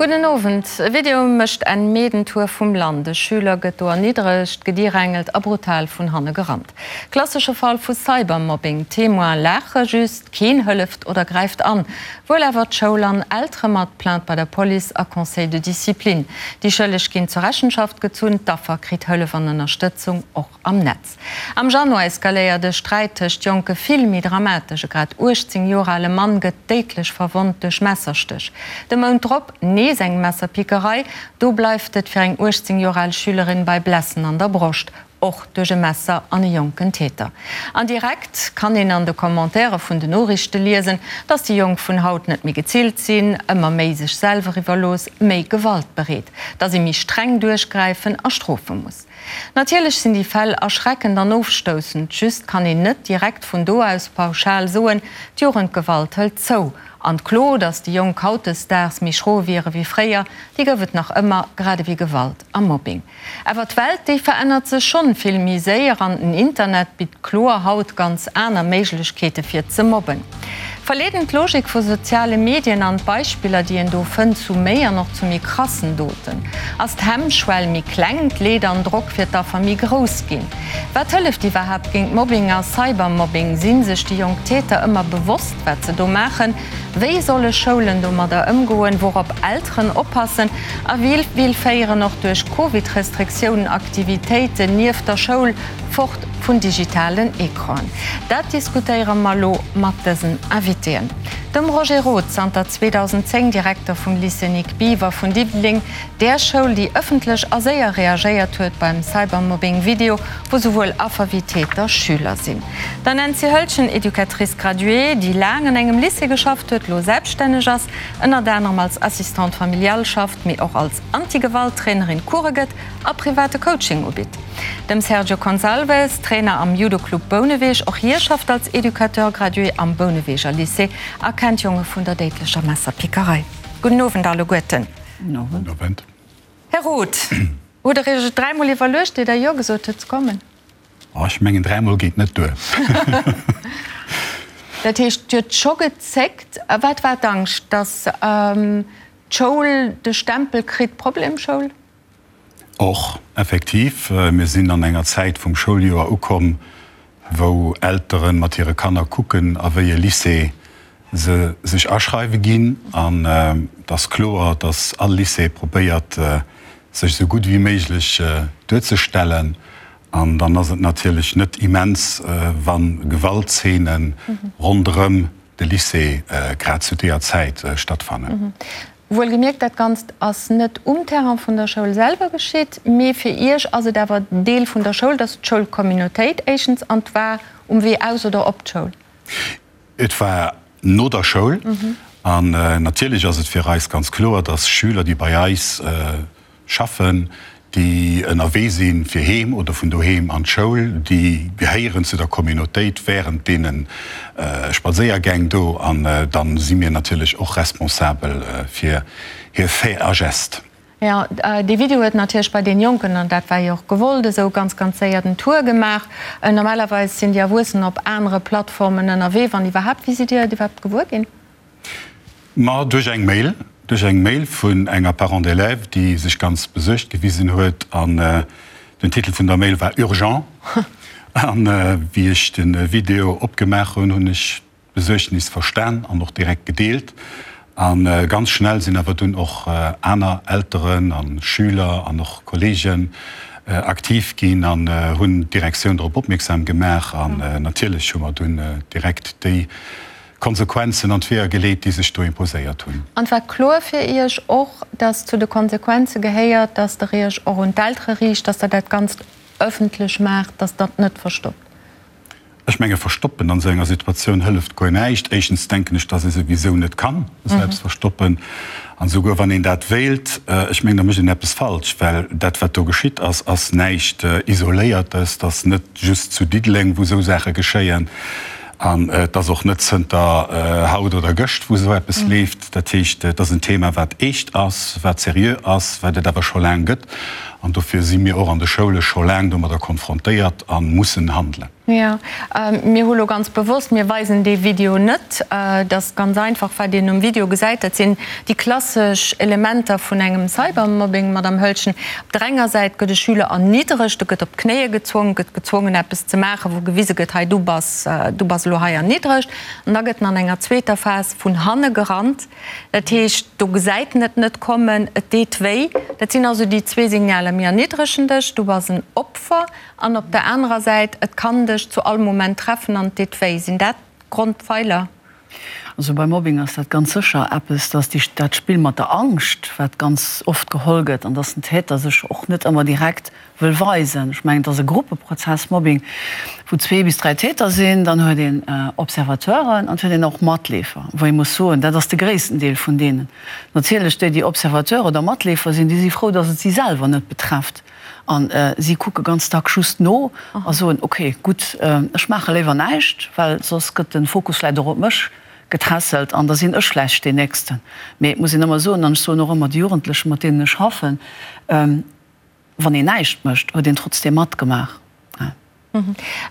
Gudden Owend. E Video mécht en Meedentour vum Land. E Schüler gëtt do erniddregt, gedirängelt a brutal vun hanne gerannt. Klassesche Fall vu Cybermobbing. D'Témoine laache just, keen hëlleft oder gräift an. Wuel awer d'Schoul an Eltere mat Plainte bei der Police a Conseil de discipline. Déi Schëlleg ginn zur Rechenschaft gezunn, d'Affer kritt Hëllef an Ënnerstëtzung, och am Netz. Am Januar eskaléiert e Sträit tëscht Jonke vill méi dramatesch. E grad 18 Joer ale Mann gëtt déidlech verwonnt duerch Messerstéch. De Mount drop nees eng Messerpickerei. Do bleift et fir eng 18 Joer al Schülerin bei Blessen an der Broscht, och duerch e Messer an e jonken Täter. An direkt kann een an de Commentairë vun den Noriichte liesen, dass déi Jonk vun haut net méi gezillt sinn, ëmmer méi sech selwer iwwerlooss, méi gewaltbereet, dass ee méi streng duerchgräifen a strofe muss. Natierlech sinn déi Fäll erschreckend an ofstoussend, just kann een net direkt vun do aus pauschal soen, d'Jugendgewalt hëlt zou. An d'Klo, datt déi Jonk hautdesdaags méi schro wiere wéi fréier, déi gouf et nach ëmmer, grad ewéi Gewalt a Mobbing. Awer d'Welt, déi verännert sech schonn vill méi séier an den Internet bitt kloer haut ganz aner Méiglechkeete fir ze mobben. Verleeden d'Logik vu soziale Medien an d'Beispiller, déi een do fënnt, zu méi an och zu méi krassen Doten? Ass d'Hemmschwell méi kleng, d'Leed an Drock fir d'Affer méi grouss ginn? Wat hëlleft iwwerhaapt géint Mobbing a Cybermobbing? Sinn sech déi jonk Täter ëmmer bewosst, wat se do maachen? Wéi solle Schoulen domadder ëmgoen? Wourop Elteren oppassen? A wéi vill féieren och duerch Covid-Restriktiounen Aktivitéiten nieft der Schoul Fort vun digitalen Ecranen. Dat diskutéiere mer elo mat dësen Invitéen. Dem Roger Roth, zanter 2010 Direkter vum Lycée Nic Biever vun Diddeleng, där Schoul, déi ëffentlech a séier reagéiert huet beim Cybermobbing-Video, wou souwuel Affer wéi Täter Schüler sinn. Der Nancy Höltgen, Educatrice graduée, déi laang an engem Lycée geschafft huet, elo selbststänneg ass, ënnert anerem als Assistante familiale schafft, mee och als Anti-Gewalt-Trainerin Course gëtt a private Coaching ubitt. Dem Sergio Consalves, Trainer am Judo-Club Bouneweg, och hie schafft als Educateur gradué am Bouneweger Lycée a kennt Jonge vun der déidlecher Messerpickerei. Gudden Owend alleguerten. Gudden Owend. Här Roth, hutt Der Iech et dräimol iwwerluecht, ier Der Jo gesot hutt ze kommen? Oh, ech mengen, dräimol geet net duer. Dat heescht, Dir hutt scho gezéckt. Wat war d'Angscht? Datt d'Schoul de Stempel kritt, Problemschoul? Och, effektiv, mir sinn an enger Zäit vum Schouljoer ukomm, wou Eltere mat hire Kanner kucken, a wéi e Lycée se sech aschreiwe ginn. An et ass kloer, datt all Lycée probéiert, sech esou gutt wéi méiglech duerzestellen. An dann ass et natierlech net immens, wa Gewaltzeene ronderëm de Lycée grad zu deeër Zäit stattfannen. Wuelgemierkt, dat Ganzt ass net um Terrain vun der Schoul selwer geschitt, mee fir Iech ass et awer Deel vun der Schoul, dass d'Schoulcommunautéit éischtens, an 't war um Wee aus oder op d'Schoul? Et war no der Schoul. An natierlech ass et fir eis ganz kloer, dass Schüler, déi bei eis Schaffen, déi ënnerwee si fir heem oder vun doheem an d'Schoul, déi gehéieren zu der Communautéit wärend deene Spadséiergäng do an da si mir natierlech och responsabel fir hir Faits a Gestes. Jo, dee Video huet natierlech bei deene Jonken, an dat war jo och gewollt esou, ganz, ganz séier den Tour gemaach. Normalerweis sinn déi Erwuessen op anere Plattformen ënnerwee, wann iwwerhaapt. Wéi sidd Dir et iwwerhaapt gewuer ginn? Ma duerch eng Mail, duerch eng Mail vun enger Parent d'élève, déi sech ganz besuergt gewisen huet. An den Titel vun der Mail war Urgent. An wéi ech de Video opgemaach hunn, hunn ech d'Besuergnis verstan an och direkt gedeelt. A ganz schnell sinn awer dunn och aner Elteren a Schüler an och Kolleegen aktiv ginn an hunn d'Direktioun drop opmierksam gemaach. An natierlech hu mer dunn direkt déi Konsequenzen an d'Weeër geleet, déi sech do imposéiert hunn. An et war kloer fir Iech och, dass zu de Konsequenze gehéiert, dass Der Iech och un d'Eltere riicht, dass Der dat Ganzt ëffentlech maacht, dass Der et net verstoppt? Ech menge verstoppen an esou enger Situatioun hëlleft guer näischt. Éischtens denken ech, dass ee souwisou net ka selbst verstoppen. An esouguer wann een dat wéilt, ech mengen, da mécht een eppes falsch, well dat wat do geschitt ass, ass näischt Isoléiertes, dat ass net just zu Diddeleng, wou esou Saache geschéien. An et ass och net zënter haut oder gëscht, wou esou eppes leeft. Dat heescht, et ass en Thema, wat eescht ass, wat seriö ass, wat et awer scho laang gëtt. An dofir si mir och an de Schoule scho laang domadder konfrontéiert a mussen handelen. Jo, mir hu lo ganz bewosst, mir weisen dee Video net. Et ass ganz einfach, wat een um Video gesäit, dat sinn déi klassesch Elementer vun engem Cybermobbing, Madamm Hölschen. Op der enger Säit gëtt e Schüler erniddregt, e gëtt op d'Knéie gezwongen, gëtt gezwongen eppes ze maachen, wou gewise gëtt, hei du bass, du bass elo hei erniddregt. An da gëtt en an enger zweeter Phas vun hanne gerannt. Dat heescht, do gesäit en et net kommen, et deet wéi. Dat sinn also déi zwee Signaler, mir erniddregen dech, du bass en Opfer. An op der anerer Säit, et kann dech zu all Moment treffen an et deet wéi. Sinn dat d'Grondpfeiler? Also beim Mobbing ass dat ganz sécher eppes, dass déi, dat Spill mat der Angscht, wat ganz oft geholl gëtt, an dass den Täter sech och net ëmmer direkt wëll weisen. Ech mengen, et ass e Gruppeprozess, Mobbing, wou zwee bis dräi Täter sinn, dann huet een Observateuren an et huet een och Matleefer, wou ee muss soen, dat ass de gréissten Deel vun deenen. Natierlech déi, déi Observateur oder Matleefer sinn, déi si frou, dass et si selwer net betrefft. A si kucke ganz dack just no a soen, ok, gutt, ech maache léiwer näischt, well soss gëtt de Fokus vläicht och op mech getässelt an da sinn ech vläicht deen Nächsten. Mee et muss een ëmmer soen, an ech soen och ëmmer de Jugendlechen, mat deenen ech schaffen, Wann een näischt mécht, huet een trotzdeem matgemaach.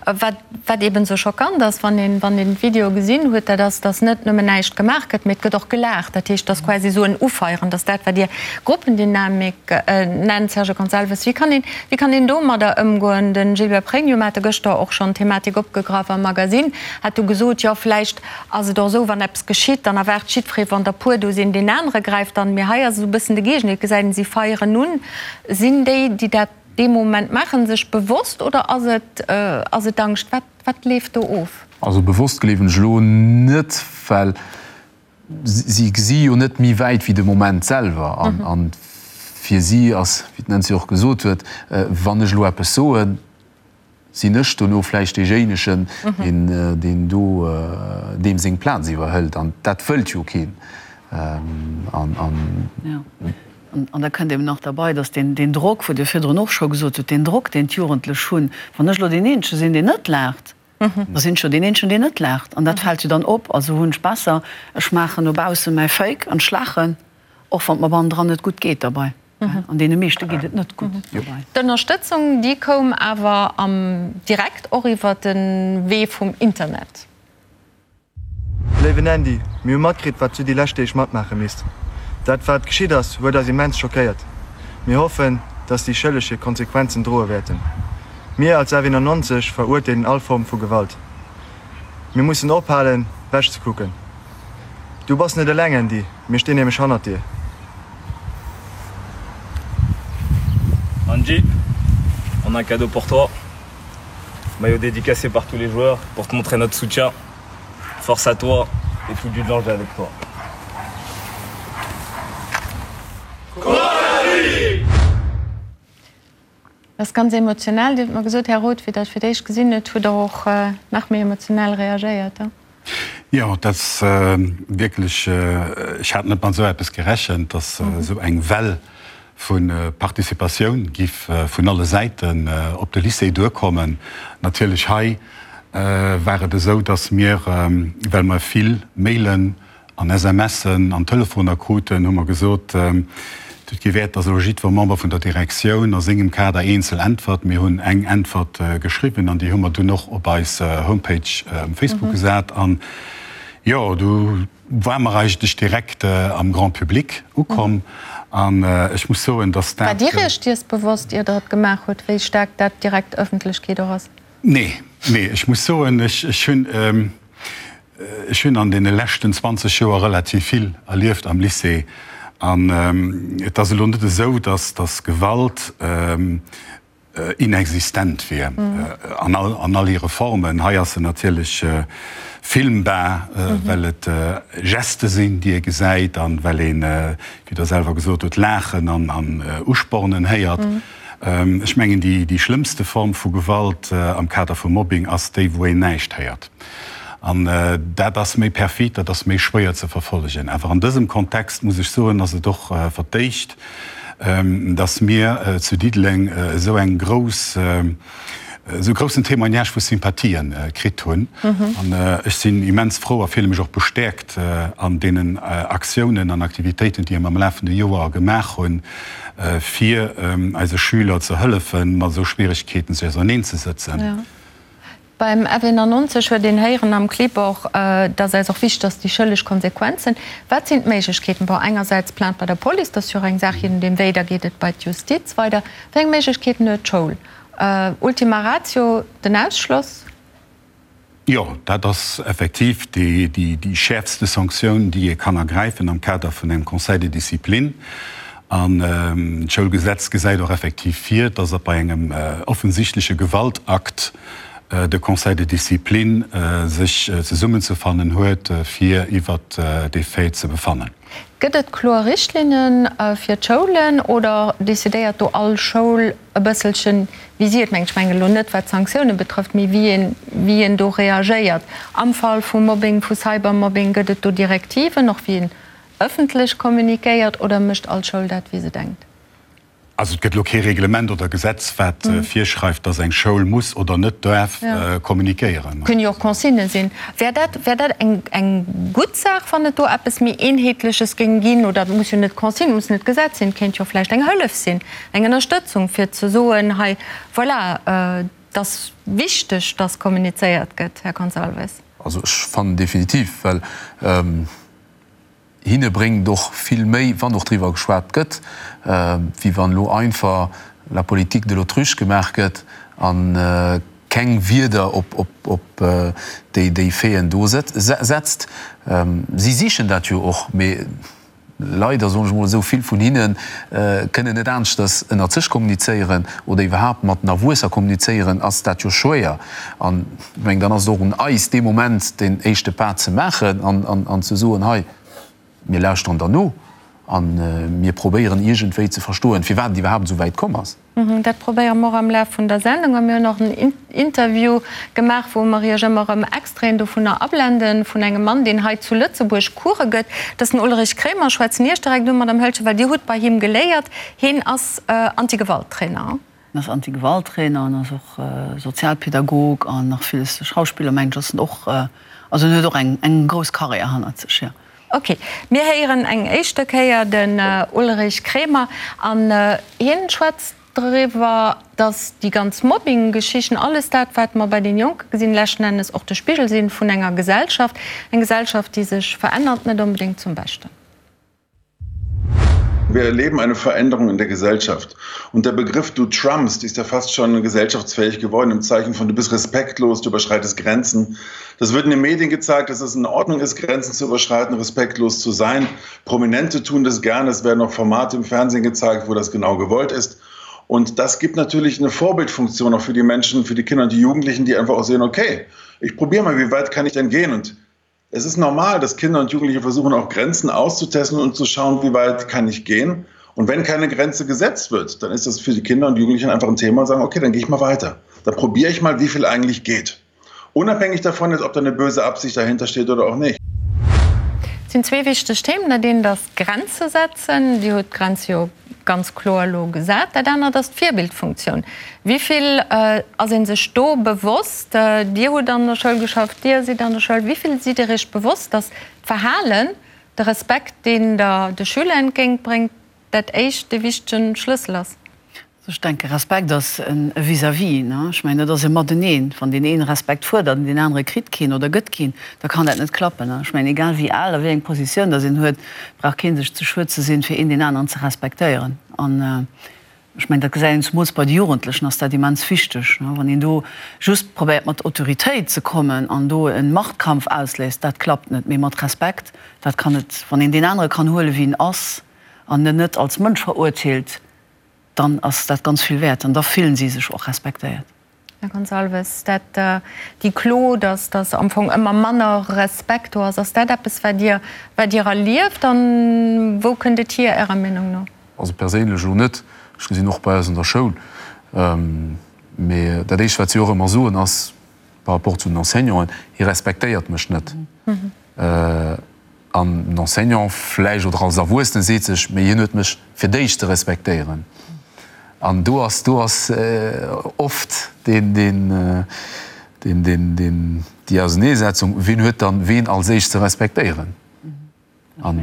Wat, wat eben esou schockant ass, wann een, wann een d'Video gesinn huet, dat ass, dass net nëmmen näischt gemaach gëtt, mee et gëtt och gelaacht. Dat heescht, et ass quasi esou en Ufeieren. Dat ass dat, wat Dir Gruppendynamik nennt, Sergio Gonçalves. Wéi kann een, wéi kann een domadder ëmgoen? De Gilbert Pregno, mir hate gëschter och schonn d'Thematik opgegraff am Magasinn, hat du gesot, jo, vläicht ass et och esou, wann eppes geschitt, dann erwaart jiddweree, wann der puer do sinn, deen anere gräift an. Mee hei ass esou e bëssen de Géigendeel, et gesäit een, si feieren un. Sinn déi, déi dat dee Moment maachen, sech bewosst oder ass et, ass et Angscht? Wat, wat leeft do of? Also bewosst gleewen ech elo net, well si gesi jo net méi wäit wéi de Moment selwer. An, an fir si ass, wéi d'Nancy och gesot huet, wann ech elo eppes soen, sinn ech dono vläicht deejéinegen, deen, deen do deem seng Plaz iwwerhëlt. An dat wëllt jo keen. An, an. An da kënnt eben nach derbei, dass deen, deen Drock, wou Dir virdrun och scho gesot hutt, deen Drock, deen d'Jugendlech hunn, wann ech elo deen Eenzege sinn, deen net laacht, da sinn ech jo deen Eenzegen, deen net laacht. An dat fält jo dann op. Also hunn ech besser, ech maachen no bausse mäi Fake an ech laachen, och wann et mer bannendran net gutt geet derbei. An deene meeschte geet et net gutt dobei. D'Ënnerstëtzung, déi koum awer am direkt och iwwer de Wee vum Internet. Léiwen Andy, mir hu matkritt wat du déi lescht Deeg matmaache misst. Dat wat geschitt ass huet eis immens schockéiert. Mir hoffen dass déi Schëlleg hir Konsequenzen droe wäerten. Mir als F91 verurteelen all Form vu Gewalt. Mir mussen ophalen wech ze kucken. Du bass net eleng Andy, mir stinn nämlech hannert dir. Andy, on a un cadeau pour toi. Maillot dédicacé par tous les joueurs pour te montrer notre soutien. Force à toi et tout Dudelange est avec toi. Dat ass ganz emotional. Dir hutt mer gesot, Här Roth, wéi Der et fir d'éischt gesinn hutt, hutt Der och nach méi emotionell reagéiert. Jo, dat ass wierklech, ech hat net mat esou eppes gerechent, datt esou eng Well vu Participatioun giff vun alle Säiten op de Lycée duerkommen. Natierlech hei war et esou, datt mir, well mer vill Mailen an SMSen an Telefoner kruten, hu mer gesot, et huet kee Wäert, datt elo jiddwer Member vun der Direktioun a sengem Kader eenzel äntwert. Mir hunn eng Äntwert geschriwwen an déi hu mer dunn och op eis Homepage um Facebook gesat. An jo, du war mer eigentlech direkt am Grand public ukomm an ech muss soen, datt dat. War Dir Iech dees bewosst, ier Der et gemaach hutt, wéi staark dat direkt Ëffentlechkeet och ass? Nee, nee, ech muss soen, ech hunn, ech hunn an deene leschten 20 Joer relativ vill erlieft am Lycée an et ass elo net esou, datt, datt Gewalt, inexistent wier an an all hire Formen. Hei ass se natierlech filmbar, well et Geste sinn, déi ee gesäit an well een, wéi Der selwer gesot hutt, Laachen an an Uspornen héiert. Ech mengen, déi déi schlëmmste Form vu Gewalt am Kader vu Mobbing ass déi, wou een näischt héiert. An dat ass méi perfid, dat ass méi schwéier ze verfollegen. Awer an dësem Kontext, muss ech soen, ass et och verdéicht, dass mir zu Diddeleng esou eng grouss, esou groussen Témoignage vu Sympathien kritt hunn. An ech sinn immens frou a fille mech och bestäerkt an deenen Aktiounen an Aktivitéiten, déi mir am lafende Joer gemaach hunn, fir eise Schüler ze hëllefen, mat esou Schwieregkeeten sech auserneen ze sëtzen. Beim F91 huet een héieren am Clip och, dass eis och wichteg ass, déi schëlleg Konsequenzen. Wat sinn d'Méiglechkeeten? Bon, engersäits Plainte bei der Police, dat ass jo och eng Saach, je nodeem wéi, da geet et bei d'Justiz weider. Wéi eng Méiglechkeeten huet d'Schoul? Ultima ratio, den Ausschloss? Jo, dat ass effektiv déi schäerfste Sanktioun, déi ee kann ergräifen am Kader vun engem Conseil de discipline. An d'Schoulgesetz gesäit och effektiv vir, dass bei engem offensichtleche Gewaltakt de Conseil de discipline sech zesummenzefannen huet, fir iwwert dee Fait ze befannen. Gëtt et kloer Richtlinne fir d'Schoulen oder decidéiert do all Schoul e bësselchen, wéi si et mengt? Ech mengen elo net, wat d'Sanktioune betrëfft, mee wéi een, wéi een do reagéiert am Fall vu Mobbing, vu Cybermobbing. Gëtt et do Direktiven, och wéi een ëffentlech kommunikéiert, oder mécht all Schoul dat, wéi se denkt? Also et gëtt elo kee Reglement oder Gesetz, wat virschreift, datt eng Schoul muss oder net däerf kommunikéieren. Kënnen jo och Consignë sinn. Wär dat, wär dat eng, eng gutt Saach, wann et do eppes méi Eenheetleches géing ginn? Oder et muss jo net Consigne, muss net Gesetz sinn, et kéint jo vläicht eng Hëllef sinn, eng Ënnerstëtzung, fir ze soen, hei, voilà, et ass wichteg, datt kommunizéiert gëtt, Här Gonçalves. Also ech fannen definitiv, well Hinne bréngt och vill méi, wann och driwwer geschwat gëtt, wéi wann elo einfach la politique de l'autruche gemaach gëtt a keng Wierder op déi Faiten do setzt. Si sichen dat jo och, mee leider, soen ech emol esou, vill vun hinne kënnen net aneschters ënnert sech kommunizéieren oder iwwerhaapt mat den Erwuesser kommunizéieren, ass dat jo schwéier. An ech mengen, dann ass et och un eis, dee Moment deen éischte Pas ze maachen an ze soen, Hei, mir lauschteren der no a mir probéieren iergendwéi ze verstoen, firwat et iwwerhaapt esou wäit komm ass. Dat probéiere mer och am Laf vun der Sendung. A mir hunn och en Interview gemaach, wou mer Iech ëmmer erëm Extraiten dovunner ablenden, vun engem Mann, deen hei zu Lëtzebuerg Course gëtt. Dat ass den Ulrich Kremer. Ech schwätzen Iech direkt un, Madame Hölscher, well Dir hutt bei him geléiert. Hien ass Antigewalttrainer. En ass Anti-Gewalt-Trainer an ass och Sozialpädagog an nach villes. Schauspiller mengen ech ass en och. Also en huet och eng eng grouss Karriär hannert sech, jo. Ok, mir héieren eng éischte Kéier den Ulrich Kremer an hien schwätzt driwwer, dass déi ganz Mobbing-Geschichten, alles dat wat mer bei den Jonke gesinn, leschten Ennes och de Spigel sinn vun enger Gesellschaft, eng Gesellschaft déi sech verännert, net onbedéngt zum Beschten. Wir erleben eine Veränderung in der Gesellschaft. Und der Begriff du Trumpst ist ja fast schon gesellschaftsfähig geworden im Zeichen von du bist respektlos, du überschreitest Grenzen. Das wird in den Medien gezeigt, dass es in Ordnung ist, Grenzen zu überschreiten, respektlos zu sein. Prominente tun das gerne. Es werden auch Formate im Fernsehen gezeigt, wo das genau gewollt ist. Und das gibt natürlich eine Vorbildfunktion auch für die Menschen, für die Kinder und die Jugendlichen, die einfach auch sehen, okay, ich probiere mal, wie weit kann ich denn gehen? Und es ist normal, dass Kinder und Jugendliche versuchen, auch Grenzen auszutesten und zu schauen, wie weit kann ich gehen. Und wenn keine Grenze gesetzt wird, dann ist das für die Kinder und Jugendlichen einfach ein Thema und sagen, okay, dann gehe ich mal weiter. Dann probiere ich mal, wie viel eigentlich geht. Unabhängig davon ist, ob da eine böse Absicht dahinter steht oder auch nicht. Et sinn zwee wichteg Themen. Dat eent ass Grenze setzen. Dir hutt d'Grenz jo ganz kloer elo gesat. Dat anert ass d'Virbildfunktioun. Wéi vill ass ee sech do bewosst? Dir hutt an der Schoul geschafft, Dir sidd an der Schoul. Wéi vill sidd Dir Iech bewosst, datt d'Verhalen, de Respekt, deen Der de Schüler entgéintbréngt, dat éischt, dee wichtege Schlëssel ass? Ech denke Respekt ass e Vis-à-vis. Ech mengen, dat ass e Mateneen. Wann deen een Respekt fuerdert an deen anere kritt keen oder gëtt keen, da kann dat net klappen. Ech mengen, egal wéi al a wéi eng Positioun datt een huet, brauch kee sech ze schued ze sinn, fir een deen aneren ze respektéieren. An ech mengen, dat gesäit een zemools bei de Jugendlechen ass dat immens wichteg. Wann een do just probéiert mat Autoritéit ze kommen an do e Machtkampf ausléist, dat klappt net. Mee mat Respekt, dat kann et, wann een deen anere kann huelen, wéi en ass an en net als Mënsch verurteelt, dann ass dat ganz vill wäert an da fillen si sech och respektéiert. Här Gonçalves, dat, déi Klo, datt datt am Fong ëmmer manner Respekt do ass, ass dat eppes, wat Dir, wat Dir erlieft an wou kënnt et hier Ärer Meenung no? Also perséinlech elo net, ech gesinn och bei eis an der Schoul, mee dat éischt wat si och ëmmer soen ass par rapport zu den Enseignanten, hie respektéiert mech net. An den Enseignant vläicht oder als Erwuessene seet sech, mee hien huet mech fir d'éischt ze respektéieren. An do ass, do ass oft deen, deen, deen, deen, deen, déi Auseneesetzung, wien huet dann ween als éischt ze respektéieren. An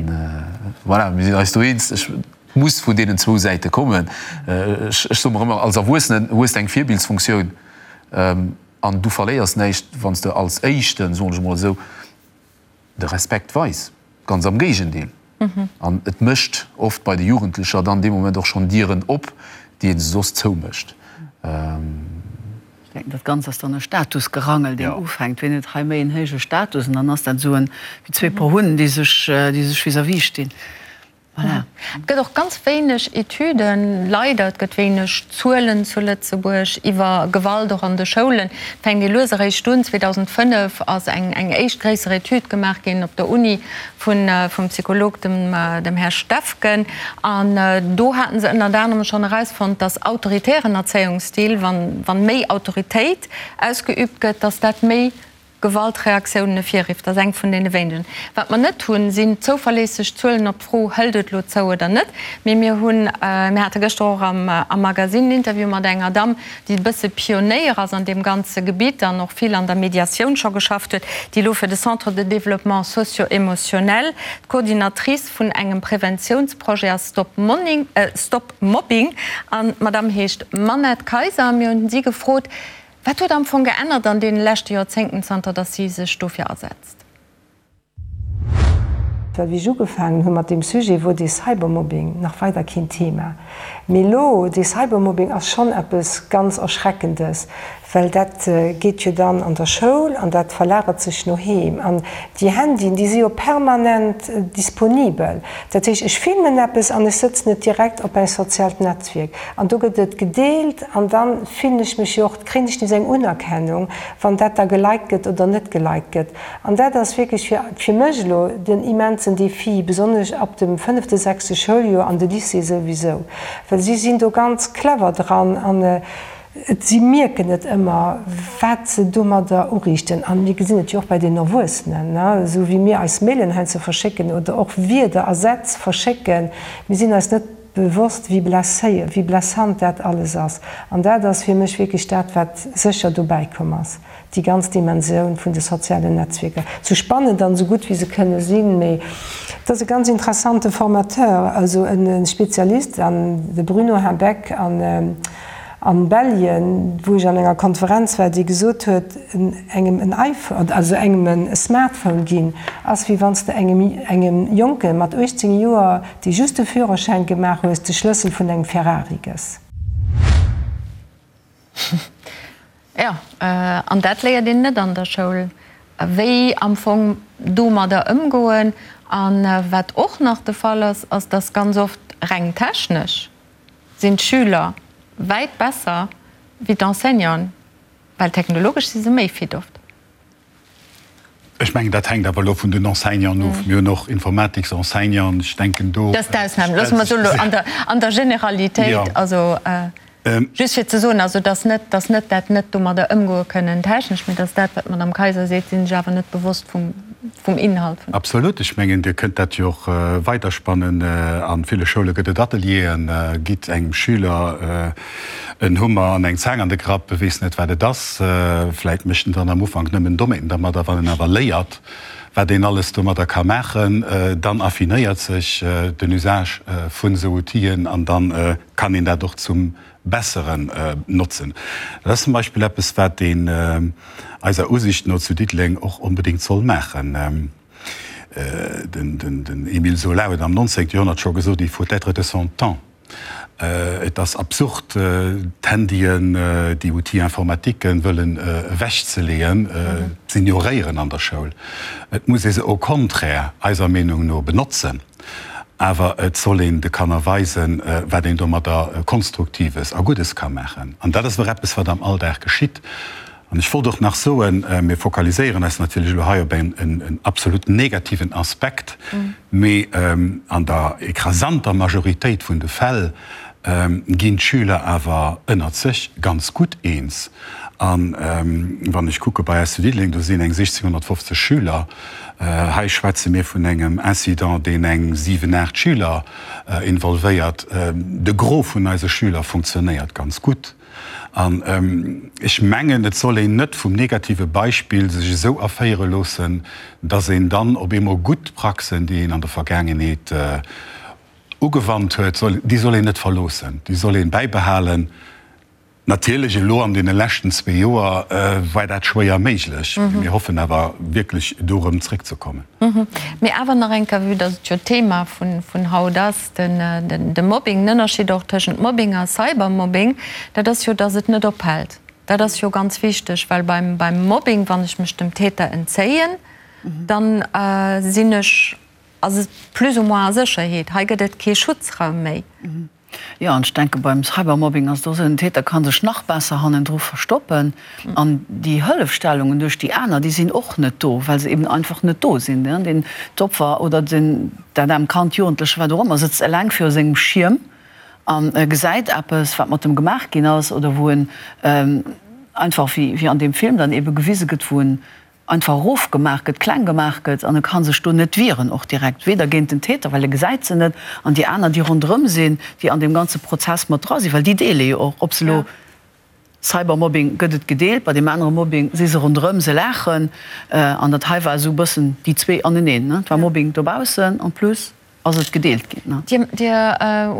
voilà, mir sinn eis do eens, ech muss vun deenen zwou Säite kommen. Ech, ech soe mer ëmmer, als Erwuessenen hues de eng Virbildsfunktioun. An du verléiers näischt, wann s de als Éischten, soen ech emol esou, de Respekt weis. Ganz am Géigendeel. An et mécht oft bei de Jugendlecher dann dee Moment och schonn Dieren op, déi ee soss zoumécht. Ech denken, dat Ganzt ass dann e Statusgerangel, deen ufänkt. Wien huet hei méi en héije Status? An dann ass dat esou en, wéi zwee Por Hunn, déi sech, déi sech vis-à-vis stinn. Voilà. Et gëtt och ganz wéineg Etüden, leider, et gëtt wéineg Zuelen zu Lëtzebuerg iwwer Gewalt och an de Schoulen. Et fänkt ee lues eréischt un. 2005 ass eng eng éischt gréisser Etüd gemaach ginn op der Uni vun vum Psycholog, dem dem Här Steffgen. An do haten se ënnert anerem schonn erausfonnt, dass autoritären Erzéiungsstil, wann wann méi Autoritéit ausgeübt gëtt, dass dat méi Gewaltreaktiounen ervirrifft, ass eng vun deene wéinegen. Wat mer net hunn, sinn zouverléisseg Zuelen op d'Fro, Hëlt et elo zou oder net? Mee mir hunn, mir hate gëschter och am Magasinn en Interview mat enger Damm, déi e bësse Pionéier ass an deem ganze Gebitt an och vill an der Mediatioun scho geschafft huet, déi elo fir de Centre de développement socio-émotionnel d'Coordinatrice vun engem Preventiounsprojet ass, Stop Mobbing, Stop Mobbing. An d'Madame heescht Manette Kayser. Mir hunn si gefrot, Wat huet am Fong geännert an deene leschte Joerzéngten, zanter datt si sech dofir asetzt? Well wéi ech ugefaangen hu mat deem Sujet, wor dee Cybermobbing nach weider keen Thema. Mee elo, dee Cybermobbing ass schonn eppes ganz Erschreckendes, well dat geet jo dann an der Schoul an dat verlagert sech no heem. An déi Handyen, déi si jo permanent disponibel. Dat heescht, ech filmen eppes an ech sëtzen et direkt op en soziaalt Netzwierk. An do gëtt et gedeelt an da fillen ech mech jo och, kréien ech nees eng Unerkennung, wann dat da geliked gëtt oder net geliked gëtt. An dat ass wierklech fir, fir mech elo den immensen Défi, besonnesch ab dem fënnefte, sechste Schouljoer an de Lycée souwisou, well si sinn do ganz clever dran an et, si mierken net ëmmer, wat se domadder uriichten. An mir gesinn et jo och bei den Erwuessenen, esou wéi mir eis Mailen heiansdo verschécken oder och Wierder a Sätz verschécken, mir sinn eis net bewosst, wéi blesséier, wéi blessant dat alles ass. An dat ass fir mech wierklech dat, wat sécher dobäi komm ass, déi ganz Dimensioun vun de sozialen Netzwierker. Sou spannend an esou gutt wéi se kënne sinn, mee et ass e ganz interessante Formateur, also e Spezialist, an de Bruno Habeck an an Belgien, wou ech an enger Konferenz war, dee gesot huet, engem en iPhone, also engem e Smartphone ginn, ass wéi wann s de engem engem Jonke mat 18 Joer, dee just de Führerschäin gemaach hues, de Schlëssel vun engem Ferrari gëss. Jo, an dat léiert een net an der Schoul, wéi am Fong domadder ëmgoen. A wat och nach de Fall ass, ass dass ganz oft reng technesch sinn d'Schüler wäit besser wéi d'Enseignanten, well technologesch si se méi fit oft. Ech mengen, dat hänkt awer elo vun den Enseignanten of. Mir hunn och Informatiksenseignanten, ech denken do. Dat ass d'Ausnam. Loosse mer soen, elo an der Generalitéit, also just fir ze soen, also dass net, dass net dat net domadder ëmgoe kënnen technesch, mee dass dat, wat d'Madame Kayser seet, si sech awer net bewosst vum. vum Inhalt vun. Absolut. Ech mengen, Dir kënnt dat jo och weiderspannen. A ville Schoule gëtt et Atelieren. Gitt engem Schüler en Hummer an eng Zaang an de Grapp, e weess net, wat et ass. Vläit mécht en dann am Ufank nëmmen Dommheeten dermadder. Wann en awer léiert, wat een alles domadder ka maachen, dann affinéiert sech den Usage vun esou Outiller an da kann een dat och zum Besseren notzen. Dat ass zum Beispill eppes, wat een eiser Usicht no zu Diddeleng och onbedéngt soll maachen. Den Émile Zola huet am 19. Joerhonnert scho gesot, Il faut être de son temps. Et ass absurd, d'Handyen, déi Outils informatiquen wëllen ewechzeleeën, z'ignoréieren an der Schoul. Et muss ee se au contraire eiser Meenung no benotzen. Awer et soll een de Kanner weisen, wat een domadder Konstruktives a Guddes ka maachen. An dat ass awer eppes, wat am Alldag geschitt. An ech wollt och nach soen, mir fokaliséieren eis natierlech elo hei op en absolut negativen Aspekt, mee an der écrasanter Majoritéit vun de Fäll ginn d'Schüler awer ënnert sech ganz gutt eens. A wann ech kucke bei eis zu Diddeleng, do sinn eng 1.650 Schüler. Hei schwätze mir vun engem Incident, deen eng 7, 8 Schüler involvéiert. De Gros vun eise Schüler funktionéiert ganz gutt. An ech mengen, et soll een net vum negative Beispill sech esou erféiere loossen, dass een dann op eemol gutt Praxen, déi een an der Vergaangenheet ugewannt huet, déi soll een net verloossen, déi soll ee bäibehalen. Natierlech elo an deene leschten zwee Joer war dat schwéier méiglech, mee mir hoffen awer wierklech do erëm zréckzekommen. Mee awer nach eng Kéier, vue dass et jo d'Thema vun haut ass, de Mobbing, den Ënnerscheed och tëschent Mobbing a Cybermobbing, dat ass jo, dass et net ophält. Dat ass jo ganz wichteg, well beim Mobbing, wann ech mech dem Täter entzéien, dann sinn ech plus ou moins a Sécherheet. Hei gëtt et kee Schutzraum méi. Jo, an ech denke beim Cybermobbing ass et och esou, den Täter ka sech nach besser hannendru verstoppen an déi Hëllefstellungen duerch déi aner, déi sinn och net do, well se eben einfach net do sinn. Den, d'Opfer oder den, dat aarmt Kand, Jugendleche, wat och ëmmer, sëtzt eleng viru sengem Schierm a gesäit eppes, wat mat em gemaach ginn ass oder wou en einfach, wéi an deem Film dann ebe gewise gëtt, wou en einfach erofgemaach gëtt, kleng gemaach gëtt an e ka sech do net wieren, och direkt, weder géint den Täter, well e gesäit se net, an déi aner, déi ronderëm sinn, déi an deem ganze Prozess mat dra sinn, well déi deele jo och, ob se elo Cybermobbing gëtt et gedeelt, bei deem anere Mobbing si se ronderëm, se laachen an dat hei war esou e bëssen déi zwee aneneen, ne, et war Mobbing dobaussen en plus. ass et gedeelt ginn. Dir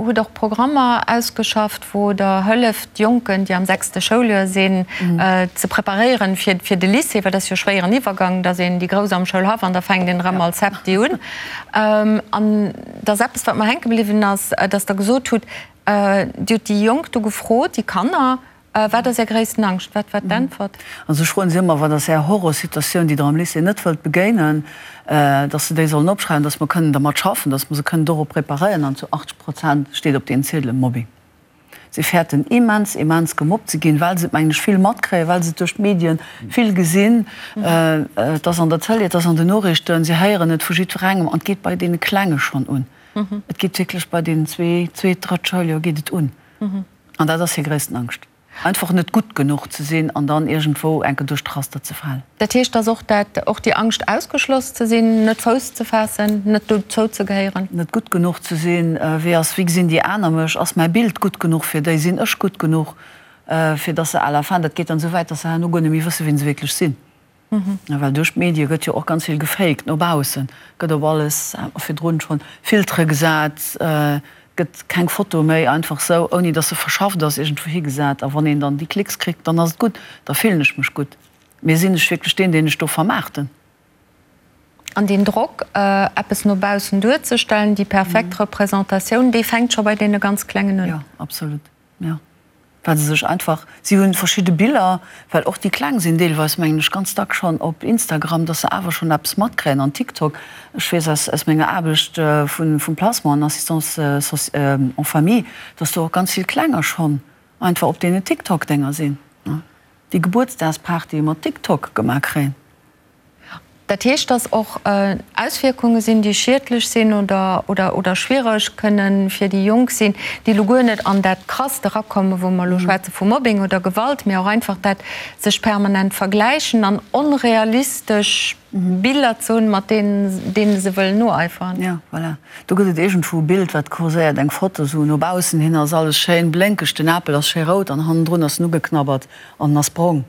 hutt och Programmer ausgeschafft, wou Der hëlleft, Jonken, déi am sechste Schouljoer sinn, ze preparéieren fir de Lycée, well dat ass jo e schwéieren Iwwergang, da sinn déi Grouss am Schoulhaff an da fänkt een erëm als Septi un. An da ass eppes, wat mer hänke bliwwen ass, dass Der gesot hutt, Dir hutt déi Jonk do gefrot, déi Kanner, Wat ass Är gréissten Angscht? Wat war d'Äntwert? Also ech froen si ëmmer, Wat ass Är Horrorsituatioun, déi Der am Lycée net wëllt begéinen? Dass se déi sollen opschreiwen, dass mer kënnen dermat schaffen, dass mer se kënnen dorop preparéieren. An zu 80 Prozent steet op deenen Ziedele Mobbing. Si fäerten immens, immens gemobbt ze ginn, well se et, mengen ech, vill matkréien, well se et duerch d'Medien vill gesinn. Et ass an der Tëlee, et ass an den Noriichten, si héieren et vu jiddwerengem. An et geet bei deene Klenge schonn un. Et geet wierklech bei deenen zwee, zweet, drëtt Schouljoer geet et un. An dat ass hir gréissten Angscht, einfach net gutt genuch ze sinn an dann iergendwou enke duerch d'Raster ze falen. Dat heescht, dass och dat, och déi Angscht ausgeschloss ze sinn, net Fouss ze faassen, net dozou ze gehéieren. Net gutt genuch ze sinn, wéi ass, wéi gesinn déi aner mech, ass mäi Bild gutt genuch fir déi, sinn ech gutt genuch, fir dass se à la fin, dat geet dann esou wäit, dass se herno guer net méi wësse wien se wierklech sinn. Well duerch d'Medie gëtt jo och ganz vill gefaked no baussen, gëtt op alles, hat mer virdrun schonn, Filtere gesat, gëtt keng Foto méi einfach sou, ouni datt se verschafft ass, iergendwou higesat. A wann een dann déi Klicks kritt, dann ass et gutt, da fillen ech mech gutt. Mee sinn ech wierklech deen, deen ech do vermaarten? An deen Drock, eppes no baussen duerzestellen, déi perfekt Representatioun, dee fänkt scho bei deene ganz Klengen un. Jo, absolut. Jo, well se sech einfach, si hunn verschidde Biller, well och déi Kleng sinn deelweis, mengen ech, ganz dack schonn op Instagram, dass se awer schonn eppes matkréien an TikTok. Ech weess aus aus menger Aarbecht vun vum Placement an Assistance en famille, dass do och ganz vill Klenger schonn einfach op deenen TikTok-Dénger sinn, déi Gebuertsdagspartye mat TikTok gemaach kréien. Dat heescht, dass och Auswierkunge sinn, déi schiedlech sinn oder, oder schwiereg kënnen fir déi Jonk sinn, déi elo guer net an dat Krasst erakommen, wou mer elo schwätze vu Mobbing oder Gewalt, mee och einfach dat sech permanent vergläichen an onrealistesch Biller ze hunn, mat deenen, deene se wëllen noeiferen. Jo, voilà. Do gëtt et iergendwou e Bild, wat kurséiert, eng Foto, esou no baussen hin ass alles schéin blénkeg, den Apel ass schéi rout an hannendrun ass en ugeknabbert an en ass brong.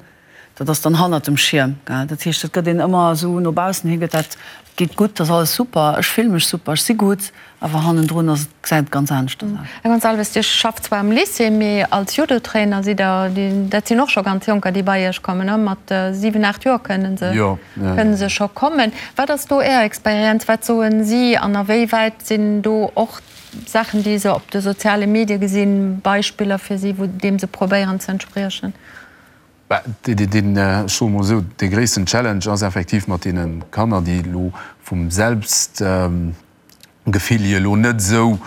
Dat ass dann hannert dem Schierm, gell. Dat heescht, et gëtt een ëmmer esou no baussen hi gëtt dat, et geet gutt, et ass alles super, ech fille mech super, ech si gutt, awer hannendrun ass et, gesäit et ganz aneschters aus. Här Gonçalves, Dir schafft zwar am Lycée, mee als Judotrainer sidd Der, dat sinn och scho ganz Jonker, déi bei Iech kommen, ne? Mat 7, 8 Joer kënne se, kënne se scho kommen. Wat ass do Är Experienz? Wat soen si an a wéi wäit sinn do och Saachen, déi se op de soziale Medie gesinn, Beispiller fir si, wou deem se probéieren ze entspriechen? Deen, ech soe mol esou, dee gréissten Challenge ass effektiv mat deene Kanner, déi elo vum Selbstgefill hier elo net esou,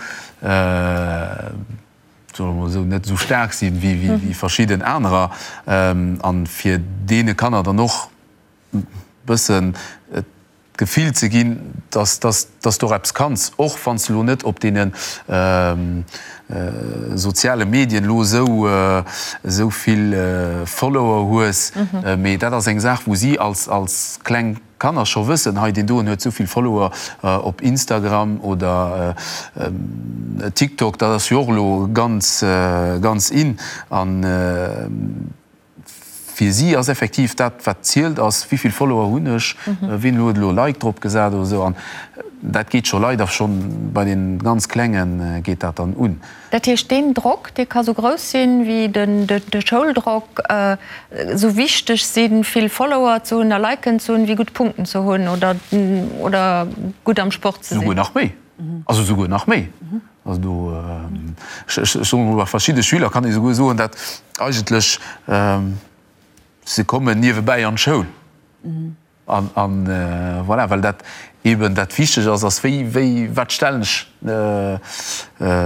soe mer mol esou, net esou staark sinn wéi verschidden anerer, an fir deene Kanner dann och e bëssen d'Gefill ze ginn, dass dass dass du och eppes kanns, och wann s de elo net op deene soziale Medien elo esou esou vill Follower hues. Mee dat ass eng Saach, wou si als als kleng Kanner scho wëssen, hei deen doen huet esou vill Follower op Instagram oder TikTok, dat ass jo och elo ganz ganz in. An Fir si ass effektiv dat, wat zielt, ass, wéi vill Follower hunn ech, wien huet elo e Like drop gesat oder esou. An. Dat geet scho leider schonn bei den ganz Klengen geet dat dann un. Dat heescht, deen Drock, dee ka sou grouss sinn, wéi de Schouldrock, sou wichteg sinn, vill Follower ze hunn a Liken ze hunn, wéi gutt Punkten ze hunn oder oder gutt am Sport ze sinn. Souguer nach méi. Also souguer nach méi. Also do, ech soen emol, bei verschidde Schüler kann ee souguer soen, dat eigentlech se kommen niewebäi an d'Schoul. An, an voilà, well dat eeben dat Wichteg ass, ass wéi, wéi, wat stellen ech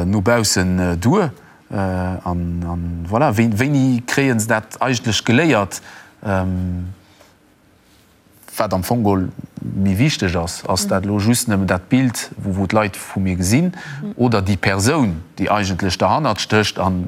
no baussen duer? An, an voilà, wéi, wéini kréie se dat eigentlech geléiert, wat am Fong geholl méi wichteg ass? Ass dat elo just nëmmen dat Bild, wou, wou d'Leit vu mir gesinn, oder déi Persoun, déi eigentlech derhannert stécht an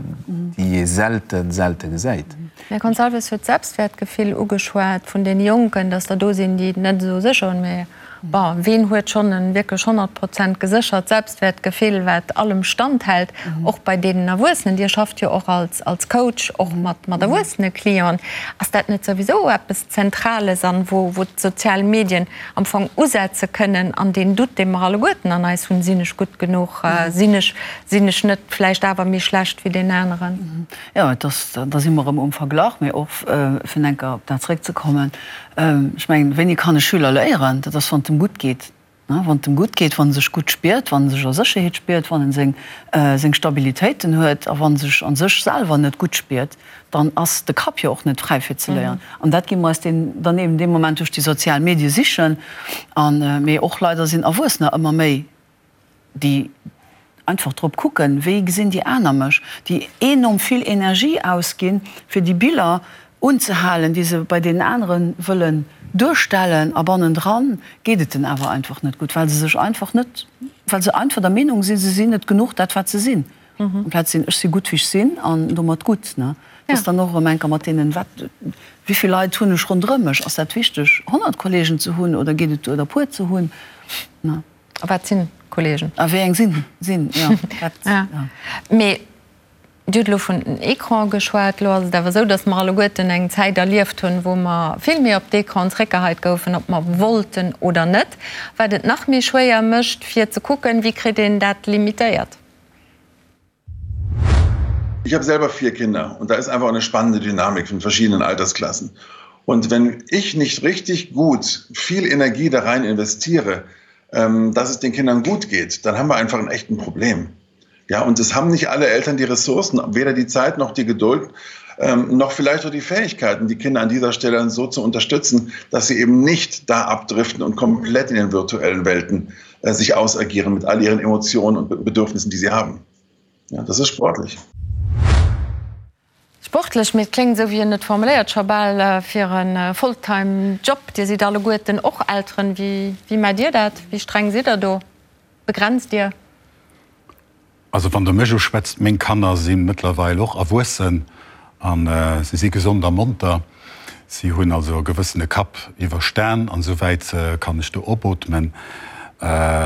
déi ee selten, selte gesäit? Här Gonçalves huet d'Selbstwäertgefill ugeschwat vun deene Jonken, datt der do sinn, déi et net esou sécher hunn. Mä bon, ween huet schonn e wierklech 100 Prozent geséchert Selbstwäertgefill, wat allem standhält, och bei deenen Erwuessenen? Dir schafft jo och als als Coach och mat mat erwuessene Clienten. Ass dat net souwisou eppes Zentrales an wou wou d'sozial Medien am Fong usetze kënnen an deen Doute, dee mer alleguerten an eis hunn, Sinn ech gutt genuch? Sinn ech sinn ech net vläicht awer méi schlecht wéi deen aneren? Jo, et ass, da si mer erëm um Verglach, mee och fir enker op dat zréckzekommen, ech mengen, wéini kann e Schüler léieren? Dat ass, wann et em gutt geet. Wann et em gutt geet, wann e sech gutt spiert, wann e sech a Sécherheet spiert, wann en seng, seng Stabilitéiten huet a wann e sech a sech selwer net gutt spiert, dann ass de Kapp jo och net fräi fir ze léieren. An dat gi mer eis deen, dann eben dee Moment duerch déi sozial Medie sichen. An, mee och leider sinn Erwuessener ëmmer méi déi einfach drop kucken, wéi gesinn déi aner mech, déi enorm vill Energie ausginn, fir déi Biller unzehalen, déi se bei deenen anere wëllen duerstellen, a bannendran geet et den awer einfach net gutt, well se sech einfach net, well se einfach der Meenung sinn, se sinn net genuch dat wat se sinn, amplaz sinn, ech si gutt wéi ech sinn an domat gutt. Ne, dat ass dann och erëm enker mat deenen, wat, wéi vill Leit hunn ech ronderëm mech, ass dat wichteg 100 Kollegen ze hunn oder geet et duer der puer ze hunn, ne. A wat sinn Kollegen? A wéi eng sinn sinn, jo. Dat, ja. Mee Dir hutt elo vun den Ecrane geschwat. Elo ass et awer esou, datt mer alleguerten eng Zäit erlieft hunn, wou mer vill méi op d'Ecranen zréckgeheit goufen, ob mer wollten oder net, wat et nach méi schwéier mécht, fir ze kucken, wéi kritt een dat limitéiert. Ich habe selber vier Kinder und da ist einfach eine spannende Dynamik von verschiedenen Altersklassen. Und wenn ich nicht richtig gut viel Energie da rein investiere, ähm, dass es den Kindern gut geht, dann haben wir einfach ein echten Problem. Ja, und es haben nicht alle Eltern die Ressourcen, weder die Zeit noch die Geduld, ähm, noch vielleicht auch die Fähigkeiten, die Kinder an dieser Stelle so zu unterstützen, dass sie eben nicht da abdriften und komplett in den virtuellen Welten äh, sich ausagieren mit all ihren Emotionen und Bedürfnissen, die sie haben. Ja, das ist sportlich. Sportlech, mee et kléngt, esou wéi en et formuléiert, scho bal fir e Fulltime Job. Dir sidd alleguerten och Elteren. Wéi, wéi maacht Dir dat? Wéi streng sidd Der do? Begrenzt Dir? Also wann Der mech uschwätzt, meng Kanner si mëttlerweil och erwuessen a si si gesond a monter. Si hunn also e gewëssene Kapp iwwerstan an esouwäit kann ech do opootmen.